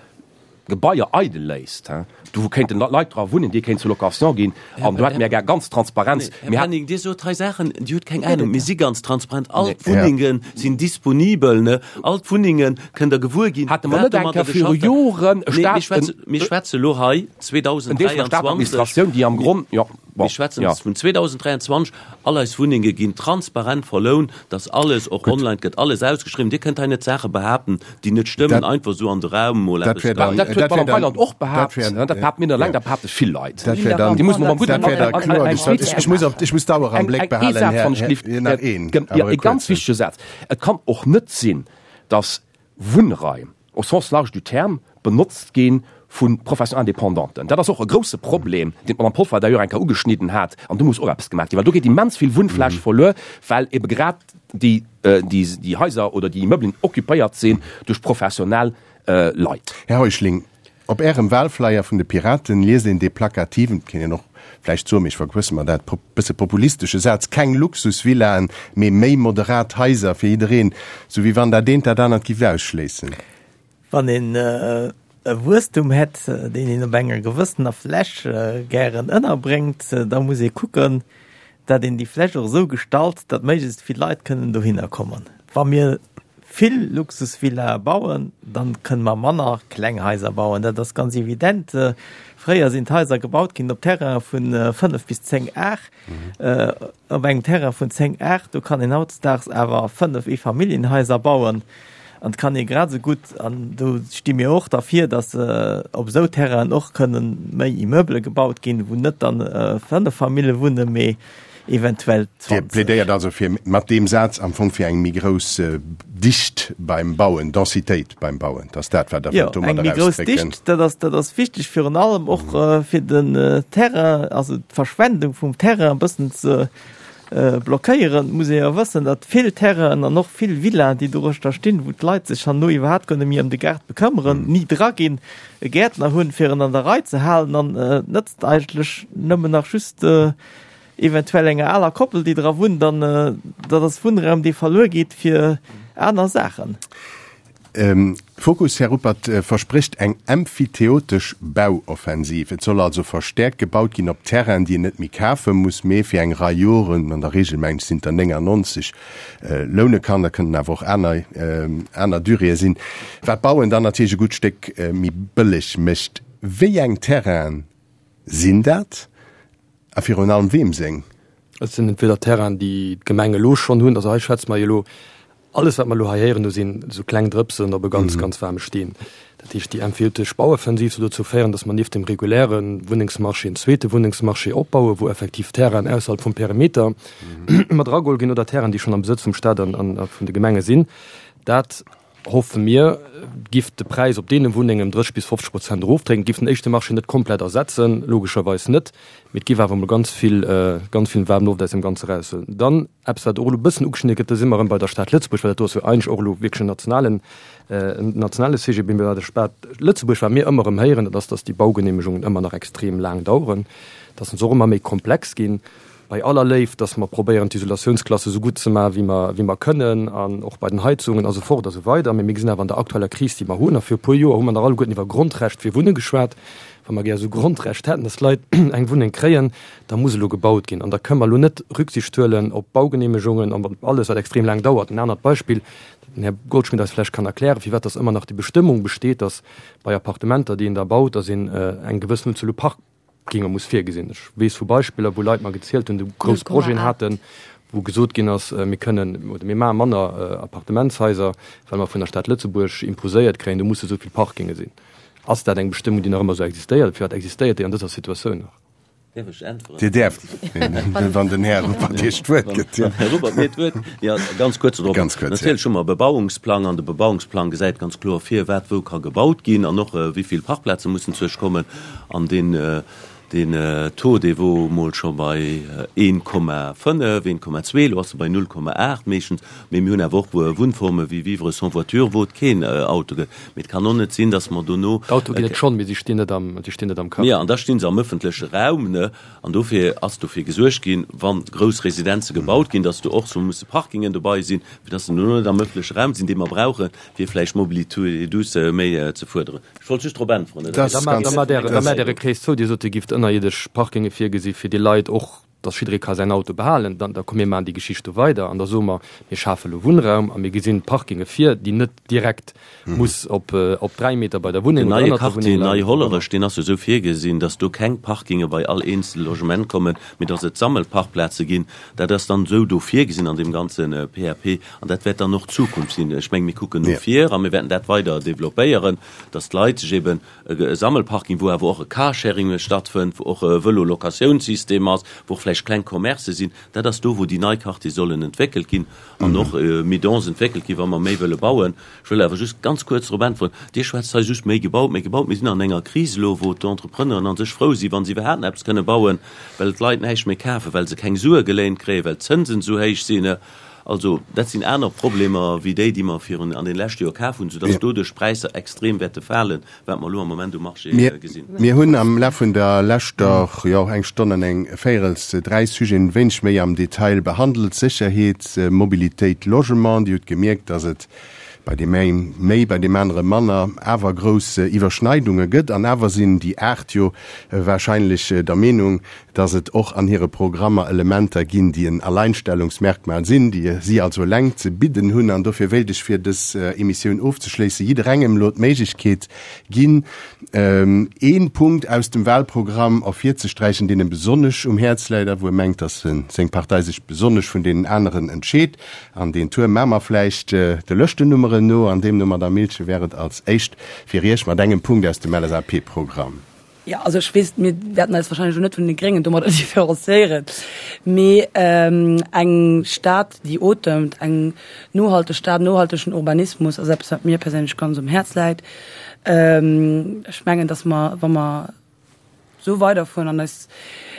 Gebaier eidel léisst, do wou kéinten Leit dra wunnen, déi kéinten zur Location ginn, an do hätte mir gär ganz Transparenz. Här Penning, Dir sot hei Saachen, Dir hutt keng Ahnung. Mir si ganz transparent. All d'Wunnenge sinn disponibel, ne? All d'Wunnenge kënnt Der gewuer ginn, Hate mer net eng Kéier viru Joren e Staat, Mir schwätze elo hei 2023. En Deel vun der Stadadministratioun, déi am Gronn, jo. Mir schwätzen vun 2023. All eis Wunnenge ginn transparent verlount, dass alles och online gëtt alles ausgeschriwwen. Dir kënnt hei net Saache behaapten, déi net stëmmen, einfach esou an de Raum mol eppes. Dat huet d'Madame Weiland och behaapt, dat behaapte mir net eleng, dat behaapte vill Leit. Déi mussen mer mam gudden Ech muss op, ech muss d'Auer am Bléck behalen, Här, nach een, awer e ganz wichtege Saz. Et kann och net sinn, dass Wunnraim, au sens large du terme, benotzt gi vu Professions indépendanten. Dat ass och e grouse Problem, deen d'Madame Polfer d'ailleurs eng Kéier ugeschnidden hat, an do muss och eppes gemaach ginn, well do geet immens vill Wunnfläch verluer, well ebe grad déi, déi Haiser oder déi Immeublen occupéiert sinn duerch professionell Leit. Här Heuschling, Op Ärem Wahlflyer vun de Piraten liest een dee plakativen, et kéint een och vläicht soen, mee ech verquësse mer dat, bësse populistesche Saz, Keng Luxusvillaen, mee méi moderat Haiser fir jiddereen, sou wéi wann dat eent dat anert giff ausschléissen. Wann een. e Wuesstum hätt, deen een op enger gewëssener Fläch gären ënnerbréngt, da muss ee kucken, datt een déi Fläch och esou gestalt, datt méiglechst vill Leit kënnen dohinner kommen. Wa mir vill Luxusvillae bauen, dann kënne mer manner kleng Haiser bauen. Dat ass ganz evident. Fréier sinn d'Haiser gebaut ginn op Terraine vu 5 bis 10 Ar. Op engem Terrain vun 10 Ar, do kann een hautdesdaags awer 5 Eefamilljenhaiser bauen. An et kann ee grad esou gutt, an do sti mir och derfir, datt op esou Terrainen och kënnen méi Immeubele gebaut ginn, wou net dann 5 Famille wunnen, mee eventuell 20. Dir plädéiert also fir mat deem Saz am Fong fir eng méi grouss Dicht beim Bauen, Densitéit beim Bauen, dat ass dat, wat Der wëllt domadder ausdrécken? Jo, eng méi grouss Dicht, dat ass, dat ass wichteg, virun allem och fir den Terrain, also d'Verschwendung vum Terrain e bëssen ze blockéieren, muss ee jo wëssen, datt vill Terrainen an och vill Villaen, déi doruechter stinn, wou d'Leit sech herno iwwerhaapt guer net méi ëm de Gaart bekëmmeren, ni dra ginn, e Gäertner hunn, fir en an der Rei ze halen an et nëtzt eigentlech nëmmen nach just eventuell enger aler Koppel, déi dra wunnt an dat ass Wunnraum, dee verluer geet fir aner Saachen. Fokus, Här Ruppert, versprécht eng emphyteotesch Bauoffensiv. Et soll also verstäerkt gebaut ginn op Terrainen, déi een net méi kafe muss, mee fir eng Rei Joren, an der Regel mengen ech sinn et der 99, loune kann. Dat kënnen awer och aner, aner Duréeë sinn, wat d'Bauen dann natierlech e gutt Stéck méi bëlleg mécht. Wéi eng Terrainen sinn dat a virun allem weem seng? Et sinn entweder Terrainen, déi d'Gemeng elo schonn hunn, also hei schwätze mer jo elo Alles, wat mer elo hei héieren, do sinn esou kleng Drëpsen op e ganz, ganz waarme Steen. Dat heescht, déi empfeelteg Bauoffensiv soll dozou féieren, datt mer nieft dem reguläre Wunnengsmarché en zweete Wunnengsmarché opbauen, wou effektiv Terrainen ausserhalb vum Perimeter mat erageholl ginn oder Terrainen, déi schonn am Besëtz vum Stat an vun de Gemenge sinn. Dat, hoffe mir, giff de Präis op deene Wunnengen ëm 30 bis 50 Prozent erofdrécken. Et giff den éischte Marché net komplett ersetzen, logescherweis net, mee et giff awer emol ganz vill, ganz vill waarm Loft aus deem Ganze eraushuelen. Dann eppes, wat och elo e bëssen ugeschnidde gëtt, do si mer erëm bei der Stad Lëtzebuerg, well dat do ass jo eigentlech och elo wierklech en nationalen, en nationale Sujet, mee bei der Stad Lëtzebuerg, wat mir ëmmer erëm héieren, dat ass, dass déi Baugeneemegungen ëmmer nach extrem laang daueren, dass se och ëmmer méi komplex ginn. Bei aller Léift, dass mer probéieren, d'Isolatiounsklasse esou gutt ze maachen, wéi mer, wéi mer kënnen, an och bei den Heizungen a sou fort a sou weider, mee mir gesinn awer an der aktueller Kris, déi mer hunn, a viru puer Joer hu mer nach alleguerten iwwer Grondrecht fir Wunne geschwat, wa mer gär esou Grondrecht hätten, dass d'Leit eng Wunneng kréien, da muss elo gebaut ginn. An da kënnen mer elo net Rücksicht huelen op Baugenehmegungen an op alles, wat extrem laang dauert. En anert Beispill, dat den Här Goldschmidt eis vläicht kann erklären, firwat dass ëmmer nach déi Bestëmmung besteet, dass bei Appartementer, déi een da baut, dass een eng gewëssen Unzuel u Park, Ginge muss virgesinn. Ech weess vu Beispiller, wou Leit mer gezielt hunn, déi grouss Projeten haten, wou gesot ginn ass, mir kënnen oder mir maache manner Appartementshaiser, well mer vun der Stad Lëtzebuerg imposéiert kréien, do musse esou vill Parkinge sinn. Ass dat eng Bestëmmung, déi nach ëmmer esou existéiert? Firwat existéiert déi an dëser Situatioun nach? Däerf ech äntweren? Dir däerft, wann den Här Ruppert Iech d'Wuert gëtt. Wann den Här Ruppert mir d'Wuert. Jo, ganz kuerz dorop. Ganz kuerz, jo. Natierlech hu mer e Bebauungsplang an de Bebauungsplang gesäit ganz kloer vir, wat wou ka gebaut ginn an och wéi vill Parkplaze mussen zuech kommen. An deen, deen Taux, dee wor mol scho bei 1,5, 1,2, elo ass e bei 0,8 meeschtens. Mee mir hunn awer och Wunnforme wéi Vivre sans voiture, wou et keen Auto gëtt. Mee et kann och net sinn, datt mer dono. D'Autoe ginn et schonn, mee si stinn net am, si stinn net am Quartier. Jo, an da sti se am ëffentleche Raum, ne? An dofir ass dofir gesuergt ginn, wa grouss Residenze gebaut ginn, datt do och sou musse Parkingen dobei sinn, fir datt se dono net am ëffentleche Raum sinn, dee mer brauchen, fir vläicht Mobilité douce méi ze fuerderen. Ech wollt just drop äntweren. Da maacht Äre Krees zou. Dir sot, Dir gifft ënnerierdesch Parkinge virgesi fir déi Leit och, datt jidderee ka säin Auto behalen. Dann da komm mir maachen déi Geschicht do weider an da soe mer, mir schafe elo Wunnraum a mir gesinn Parkinge vir, déi net direkt muss op op 3 Meter bei der Wunneng Den oder neie ënnert der Quartier Wunneng leien. Nei-Hollerech, deen ass jo esou virgesinn, datt do keng Parkinge bei all eenzel Logement kommen, mee datt et Sammelparkplaze ginn. Dat ass dann esou do virgesinn an deem ganze PAP an dat wäert dann och d'Zukunft sinn. Ech menge mir kucken no vir a mir wäerten dat weider developpéieren, datt d'Leit sech eben e Sammelparking, wou awer och e Carsharing stattfënnt, wou och e Vëlo-Locatiounssystem ass, wou och vläicht kleng Commercë sinn, dat ass do, wou déi nei Quartiere sollen entwéckelt ginn an och méi dense entwéckelt ginn, wa mer méi wëlle bauen. Ech wëll awer just ganz kuerz drop äntweren, Dir schwätzt hei just méi gebaut, méi gebaut. Mir sinn an enger Kris elo, wou d'Entrepreneuren a sech frou sinn, wa se iwwerhaapt nach eppes kënne bauen, well d'Leit näischt méi kafen, well se keng Sue geléint kréien, well d'Zënsen esou héich sinn. Also dat sinn aner Problemer wéi déi, déi mer virun an deene leschte Joer kaf hunn, soudass doduerch d'Präisser extrem wäerte falen, wat mer elo am Moment um Marché gesinn. Mir hunn am Laf vun der leschter, jo, eng Stonn an eng Véirels dräi Sujeten e wéineg méi am Detail behandelt, Sécherheet, Mobilitéit, Logement. Dir hutt gemierkt, dass et. bei deem eng méi, bei deem anere manner, awer grouss Iwwerschneidunge gëtt. An awer sinn déi 8 jo wahrscheinlech der Meenung, dass et och an hire Programmer Elementer ginn, déi en Alleinstellungsmerkmal sinn, déi si also eleng ze bidden hunn. An dofir wéilt ech, fir dës Emissioun ofzeschléissen, jidderengem elo d'Méiglechkeet ginn, ee Punkt aus dem Wahlprogramm ervirzesträichen, deen em besonnesch um Häerz läit a wou e mengt, dass seng Partei sech besonnesch vun deenen aneren entscheet. An deen Tour maache mer vläicht de Lëschtennummeren no, an deemno, Madamm Milchen, wär et als éischt fir Iech mat engem Punkt aus dem LSAP-Programm. Jo, also ech weess, mir wäerten eis wahrscheinlech elo net vun de Gréngen domadder différenciéieren, mee eng Stad, déi otemt, eng nohalteg Stad, nohaltegen Urbanismus ass eppes, wat mir perséinlech ganz um Häerz läit. Ech mengen, datt mer, wa mer esou weiderfueren an eis,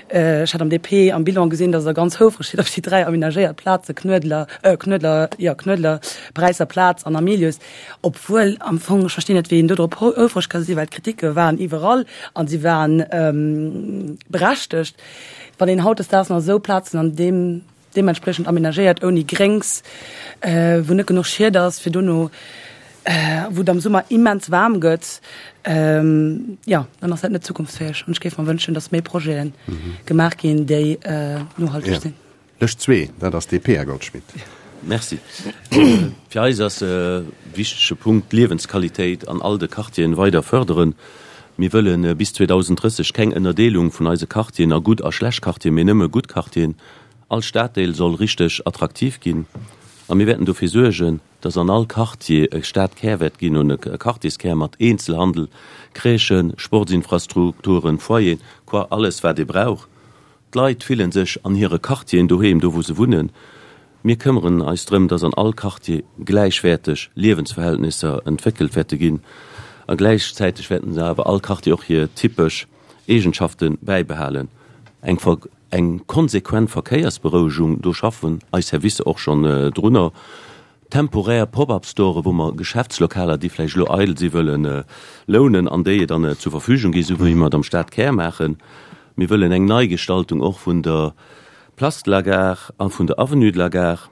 ech hat am DP am Bilan gesinn, datt Der ganz houfreg sidd op déi 3 amenagéiert Plaze Knuedler, Knuedler, jo, Knuedler, Paräisser Plaz an Hamilius, Obwuel am Fong, ech verstinn net, wéi een do drop houfreg ka sinn, well d'Kriticke waren iwwerall a si waren berechtegt. Wann een hautdesdaags nach esou Plazen an deem deementspriechend amenagéiert, ouni Gréngs, wou net genuch Schied ass, fir dono, wou et am Summer immens waarm gëtt, jo, dann ass dat net zukunftsfäeg. An ech géif mer wënschen, datt méi Projete gemaach ginn, déi nohalteg sinn. Lëscht zwee, dat ass DP, Här Goldschmidt. Merci. Fir eis ass e wichtege Punkt d'Liewensqualitéit an all de Quartieren weider fërderen. Mir wëlle bis 2030 keng Ënnerdeelung vun eise Quartieren a gutt a schlecht Quartieren, mee nëmme gutt Quartieren. All Staddeel soll richteg attraktiv ginn a mir wäerten dofir suergen, dass an all Quartier e Stadkär wäert ginn, e Quartierskär mat Eenzelhandel, Crèchen, Sportsinfrastrukturen, Foyeren, quoi alles wat ee brauch. D'Leit fillen sech an hire Quartieren doheem, do wou se wunnen. Mir këmmeren eis drëm, dass an all Quartier gläichwäerteg Liewensverhältnisser entwéckelt wäerte ginn a gläichzäiteg wäerten se awer all Quartier och hir typesch Eegenschafte bäibehalen. Eng eng konsequent Verkéiersberouegung, do schaffen eis Servicer och schonn drunner. Temporär Pop-up-Store wou mer Geschäftslokaler, déi vläicht elo eidel si wëllen lounen an déi dann zur Verfügung gi, esou wéi mer et am Stadkär maachen. Mir wëllen eng Neigestaltung och vun der Place de la Gare a vun der Avenue de la Gare.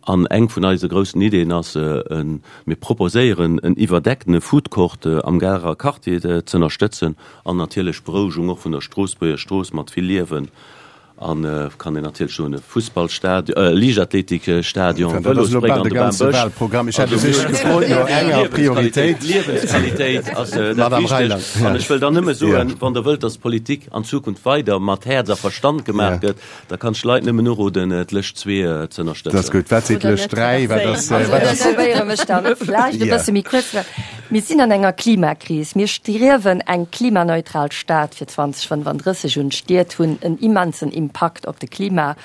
An eng vun eise groussen Ideeën ass, mir proposéieren en iwwerdeckene Foodcourt am Garer Quartier z'ënnerstëtzen an natierlech d'Berouegung och vun der Stroossbuerger Strooss mat vill Liewen An kann een natierlech soen, e Fussballstadion, e Liichtathletikstadion, Vëlosbréck an de Bambësch. Liewensqualitéit ass dat Wichtegst. An ech wëll dann nëmme soen, wann Der wëllt, dass Politik an Zukunft weider mat Häerz a Verstand gemaach gëtt, da kann ech d'Leit nëmmen uroden, d'Lëscht 2 z'ënnerstëtzen. Dat ass gutt. Wat seet d'Lëscht 3? Wat ass, wat ass. Ech probéiere mech dann vläicht e bësse méi kuerz ze maachen. Mir sinn an enger Klimakris. Mir striewen eng klimaneutral Stad fir 2035 un. D'Stied hunn en immensen Impakt op de Klima.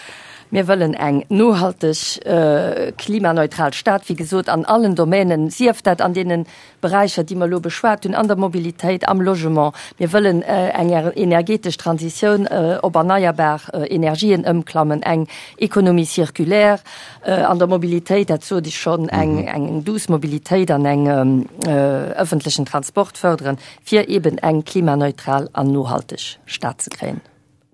Mir wëllen eng nohalteg klimaneutral Stad, wéi gesot, an allen Domänen, sief dat an deene Beräicher, déi mer elo beschwat hunn, an der Mobilitéit, am Logement. Mir wëllen eng energetesch Transitioun op erneierbar Energien ëmklammen, eng Économie circulaire, An der Mobilitéit, dat sot ech schonn, eng eng douce Mobilitéit an eng ëffentlechen Transport fërderen, fir eeben eng klimaneutral an nohalteg Stad ze kréien,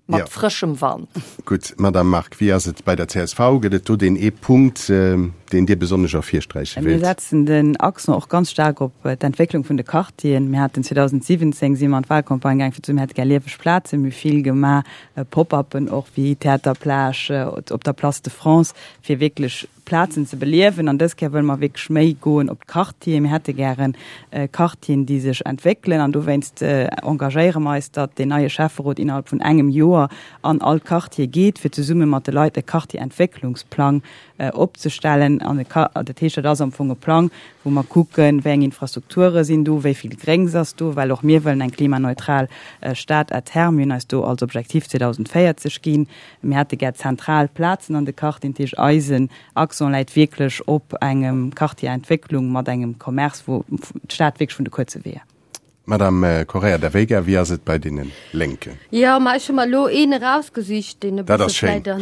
mat frëschem Wand. Gutt, Madamm Margue, wéi ass et bei der csv? Gëtt et do deen ee Punkt, deen Dir besonnesch ervirsträiche wéilt? Mir setzen den Accent och ganz staark op d'Entwécklung vun de Quartieren. Mir haten 2017, si mer an d'Wahlcampagne gaang fir ze soen, mir hätte gär lieweg Plazen. Mir hu vill gemaach Pop-uppen och wéi Theater Plage op der Place de France, fir wierklech Plazen ze beliewen. An dës Kéier wëlle mer wierklech méi goen op d'Quartieren. Mir hätte gären Quartieren, déi sech entwéckelen. An dowéinst engagéiere mer eis, datt deen neie Schäfferot innerhalb vun engem Joer an all Quartier geet, fir zesumme mat de Leit e Quartierentwécklungsplang opzestellen. An dat heescht, dat ass am Fong e Plang, wou mer kucken, wéi eng Infrastrukture sinn do, wéi vill Gréngs ass do, well och mir wëllen eng klimaneutral Stad à terme. Mir hunn eis do als Objektiv 2040 ginn. Mir hätte gär zentral Plazen an de Quartieren. Dat heescht, eisen Accent läit wierklech op engem Quartier-Entwécklung mat engem Commerce, wou d'Stad wierklech vun de kuerze Weeër. Madame Correia da Veiga, wéi ass et bei deene Lénken? Jo, ma ech hu mer elo een erausgesicht, deen e Dat bësse ass schéin. vläit an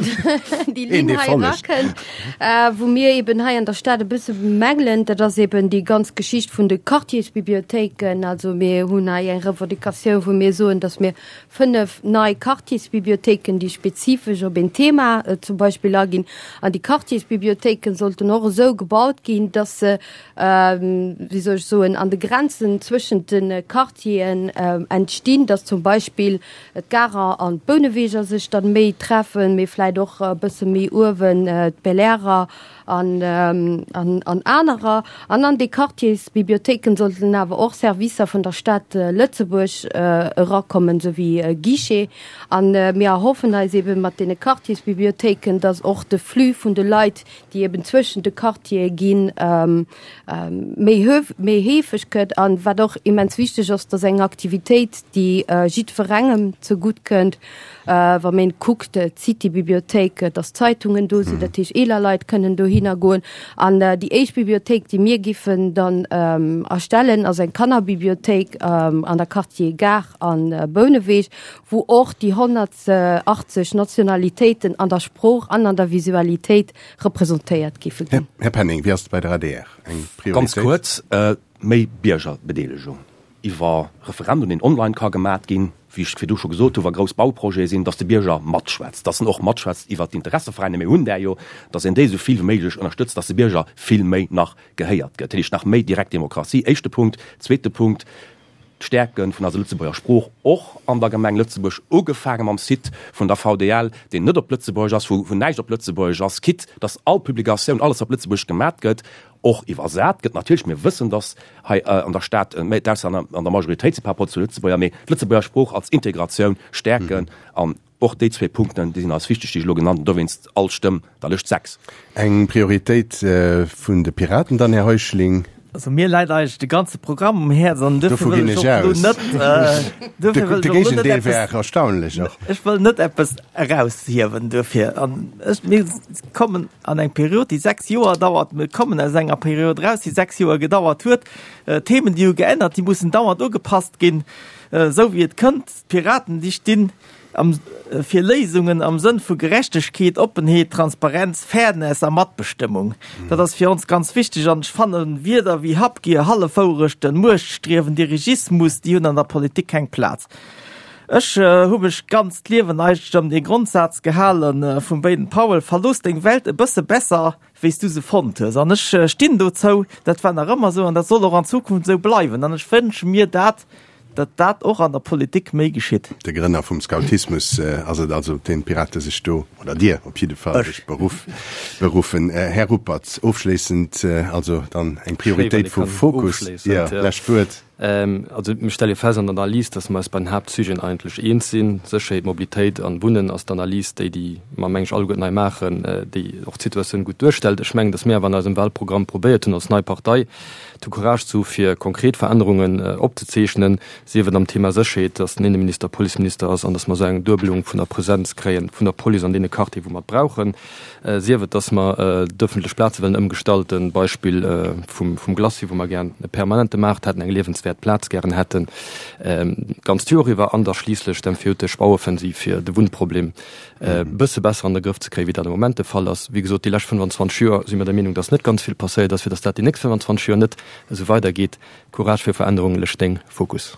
déi Een, Linn dee hei follegt. erakënnt, wou mir eben hei an der Stad e bësse bemängelen. Dat ass eben déi ganz Geschicht vun de Quartiersbibliothéiken. Also mir hunn hei eng Revendicatioun, wou mir soen, datt mir 5 nei Quartiersbibliothéiken, déi spezifesch op een Thema zum Beispill aginn. An déi Quartiersbibliothéiken sollten och esou gebaut ginn, datt se wéi soll ech soen, an de Grenzen zwëschent de Quartieren entstinn, dass zum Beispill d'Garer an d'Bouneweger sech dann méi treffen, mee vläit och e bësse méi uewen d'Belairer an, an anerer. An an déi Quartiersbibliothéiken sollten awer och Servicer vun der Stad Lëtzebuerg erakommen, esou wéi e Guichet. An mir erhoffen eis eebe mat deene Quartiersbibliothéiken, dass och de Flux vun de Leit, déi eben zwëschen de Quartiere ginn, méi méi heefeg gëtt. An wat och immens wichteg ass, dass eng Aktivitéit, déi jiddwerengem zegutt kënnt, wa een kuckt, d'City-Bibliothéik, dass Zeitungen do sinn, dat heescht eeler Leit kënnen dohinner goen. An déi éischt Bibliothéik, déi mir giffen dann erstellen, ass eng Kannerbibliothéik an der Quartier Gare a Bouneweg, wou och déi 100 80 Nationalitéiten an der Sprooch an an der Visualitéit representéiert géife ginn. Här Penning, wéi ass et bei der adr? Eng Prioritéit? Ganz kuerz, méi Biergerbedeelegung iwwer Referendum, deen online ka gemat ginn, wéi ech virdu scho gesot hu wa grouss Bauprojete sinn, datt de Bierger matschwätzt, datt en och matschwätzt iwwert d'Interesseveräiner, mir hunn där jo, datt een déi esou vill wéi méiglech ënnerstëtzt, datt de Bierger vill méi nach gehéiert gëtt. Dat heescht nach méi direkt Demokratie, éischte Punkt. Zweete Punkt, D'Stäerke vun eiser Lëtzebuerger Sprooch och an der Gemeng Lëtzebuerg, ugefaange mam Site vun der VDL, deen net op Lëtzebuergesch ass, wou näischt op Lëtzebuergesch ass, quitte dass all Publikatioun, alles wat op Lëtzebuergesch gemat gëtt, och iwwersat gëtt. Natierlech, mir wëssen, dass hei an der Stad méi d'Auslänner an der Majoritéit si par rapport zu Lëtzebuerger, mee d'Lëtzebuerger Sprooch als Integratioun stäerken an Och déi zwee Punkten, déi sinn eis wichteg, déi ech elo genannt hunn. Dowéinst all Stëmm der Lëscht 6. Eng Prioritéit vun de Piraten dann, Här Heuschling? Also mir läit eigentlech de ganze Programm um Häerz an duerfir wëll ech och elo net, duerfir wëll ech och elo net eppes, De Géigendeel wär erstaunlech och. Ech wëll net eppes eraushiewen duerfir. An ech, mir kommen an eng Period, déi 6 Joer dauert. Mir kommen aus enger Period eraus, déi 6 Joer gedauert huet. Themen, déi hu geännert, déi mussen dauernd ugepasst ginn, esou wéi et kënnt. D'Piraten, déi stinn am fir Léisungen am Sënn vu Gerechtegkeet, Oppenheet, Transparenz, Fairness a Matbestëmmung. Dat ass fir ons ganz wichteg an ech fannen, Wierder wéi Habgier, Hallefwourechten, Muechtstriewen, Dirigismus, déi hunn an der Politik keng Plaz. Ech hu mech d'ganzt Liewen eigentlech ëm dee Grondsaz gehale vum Baden Powell, Verlooss deng Welt e bësse besser, wéi s du se fonnt hues. An ech stinn dozou, dat war nach ëmmer esou an dat soll och an Zukunft esou bleiwen. An ech wënsche mir dat, datt dat och an der Politik méi geschitt. De Grënner vum Scoutismus ass et also, op deen d'Pirate sech do, oder Dir op jidde Fall, sech beruff, beruffen. Här Ruppert, ofschléissend also dann eng Prioritéit vu Fokus. Jo, lescht Wuert. Also mir stelle fest an der Analys, datt mer eis bei den Haaptsujeten eigentlech eens sinn. Sécherheet, Mobilitéit an Wunnen ass d'Analys, déi déi mer, meng ech, alleguerten hei maachen, déi och d'Situatioun gutt duerstellt. Ech mengen, datt mir awer an eisem Wahlprogramm probéiert hunn als nei Partei, de Courage ze hu fir konkret Verännerungen opzezeechnen, sief et am Thema Sécherheet, datt den Inneminister Policeminister ass an datt mer esou eng Duebelung vun der Presenz kréien vun der Police an deene Quartieren, wou mer et brauchen, sief et, datt mer d'ëffentlech Plaze wëllen ëmgestalten, Beispill vum Glacis, wou mer gären e permanente Maart hätten, eng liewenswäert Plaz gären hätten, d'ganzt Joer iwwer, an da schliisslech d'empfehltesch Bauoffensiv, fir de Wunnproblem e bësse besser an de Grëff ze kréien, wéi dat am Moment de Fall ass. Wéi gesot, déi lescht 25 Joer si mir der Meenung, dass net ganz vill passéiert ass, fir dass dat déi nächst 25 Joer net esou weidergeet. Courage fir Verännerung, lech deng Fokus.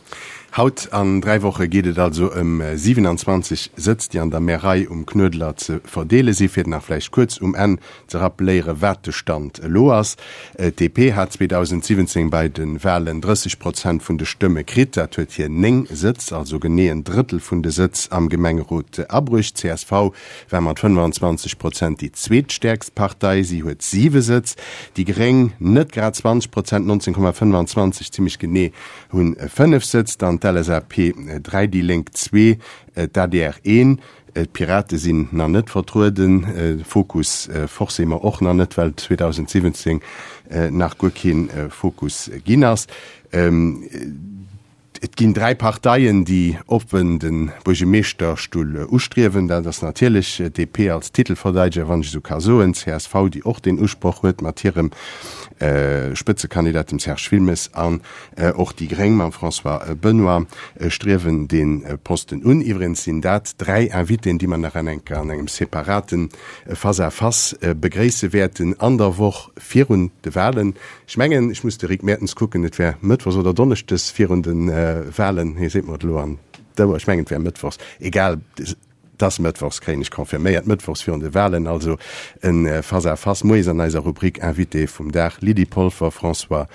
Haut an 3 Woche geet et also ëm 27 Sëtz, déi an der Märei um Knuedler ze verdeele si. Fir nach vläicht kuerz um Enn ze rappeléiere wat de Stand elo ass, D'DP hat 2017 bei de Walen 30 Prozent vun de Stëmme kritt. Dat huet hir 9 Sëtz, also genee en Drëttel vun de Sëtz am Gemengerot abruecht. Csv war mat 25 Prozent déi zweetstäerkst Partei, si huet 7 Sëtz. Déi Gréng, net grad 20 Prozent, 19,25 zimmlech genee, hunn 5 Sëtz. Dann d'LSAP 3, déi Lénk zwee, d'ADR een. D'Pirate sinn nach net vertrueden, Fokus forcément och nach net, well 2017 nach guer kee Fokus ginn ass. Et ginn 3 Parteien, déi oppen de Buergemeeschterstull ustriewen. Dat ass natierlech d'DP als Titelverdeideger, wann ech esou ka soen, csv, déi och deen Usproch huet mat hirem Spëtzekandidat, dem Serge Wilmes, an och déi Gréng mam François Benoy striewen dee Posten un. Iwwregens sinn dat 3 Invitéen, déi mer nach an enker an engem separate Face-à-face begréisse wäerten an der Woch virun de Wahlen. Ech mengen, ech muss de Rick Mertens kucken, et wär mëttwochs oder donneschdes virun de Wahlen, hie seet mer et elo an d'Ouer, ech mengen, et wär mëttwochs, egal, et ass mëttwochs, kréien ech confirméiert, mëttwochs virun de Wahlen, also e Face-à-face moies an eiser Rubrik Invité vum Dag, Lydie Polfer, François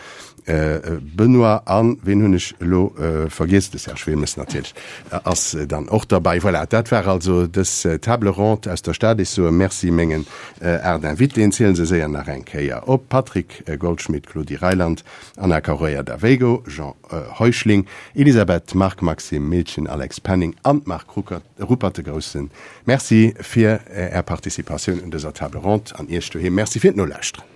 Benoy an, ween hunn ech elo vergiess, de Serge Wilmes natierlech ass dann och derbäi. Voilà, dat war also dës Table ronde aus der Stad. Ech soe Merci mengen 8 Invitéen, zielen se séier nach eng Kéier op, Patrick Goldschmidt, Claudie Reyland, Ana Correia da Veigo, Jean Heuschling, Elisabeth Margue, Maxime Miltgen, Alex Penning an Marc Ruppert. E grousse Merci fir Är Participatioun un dëser Table ronde an Iech doheem Merci fir d'Nolauschteren.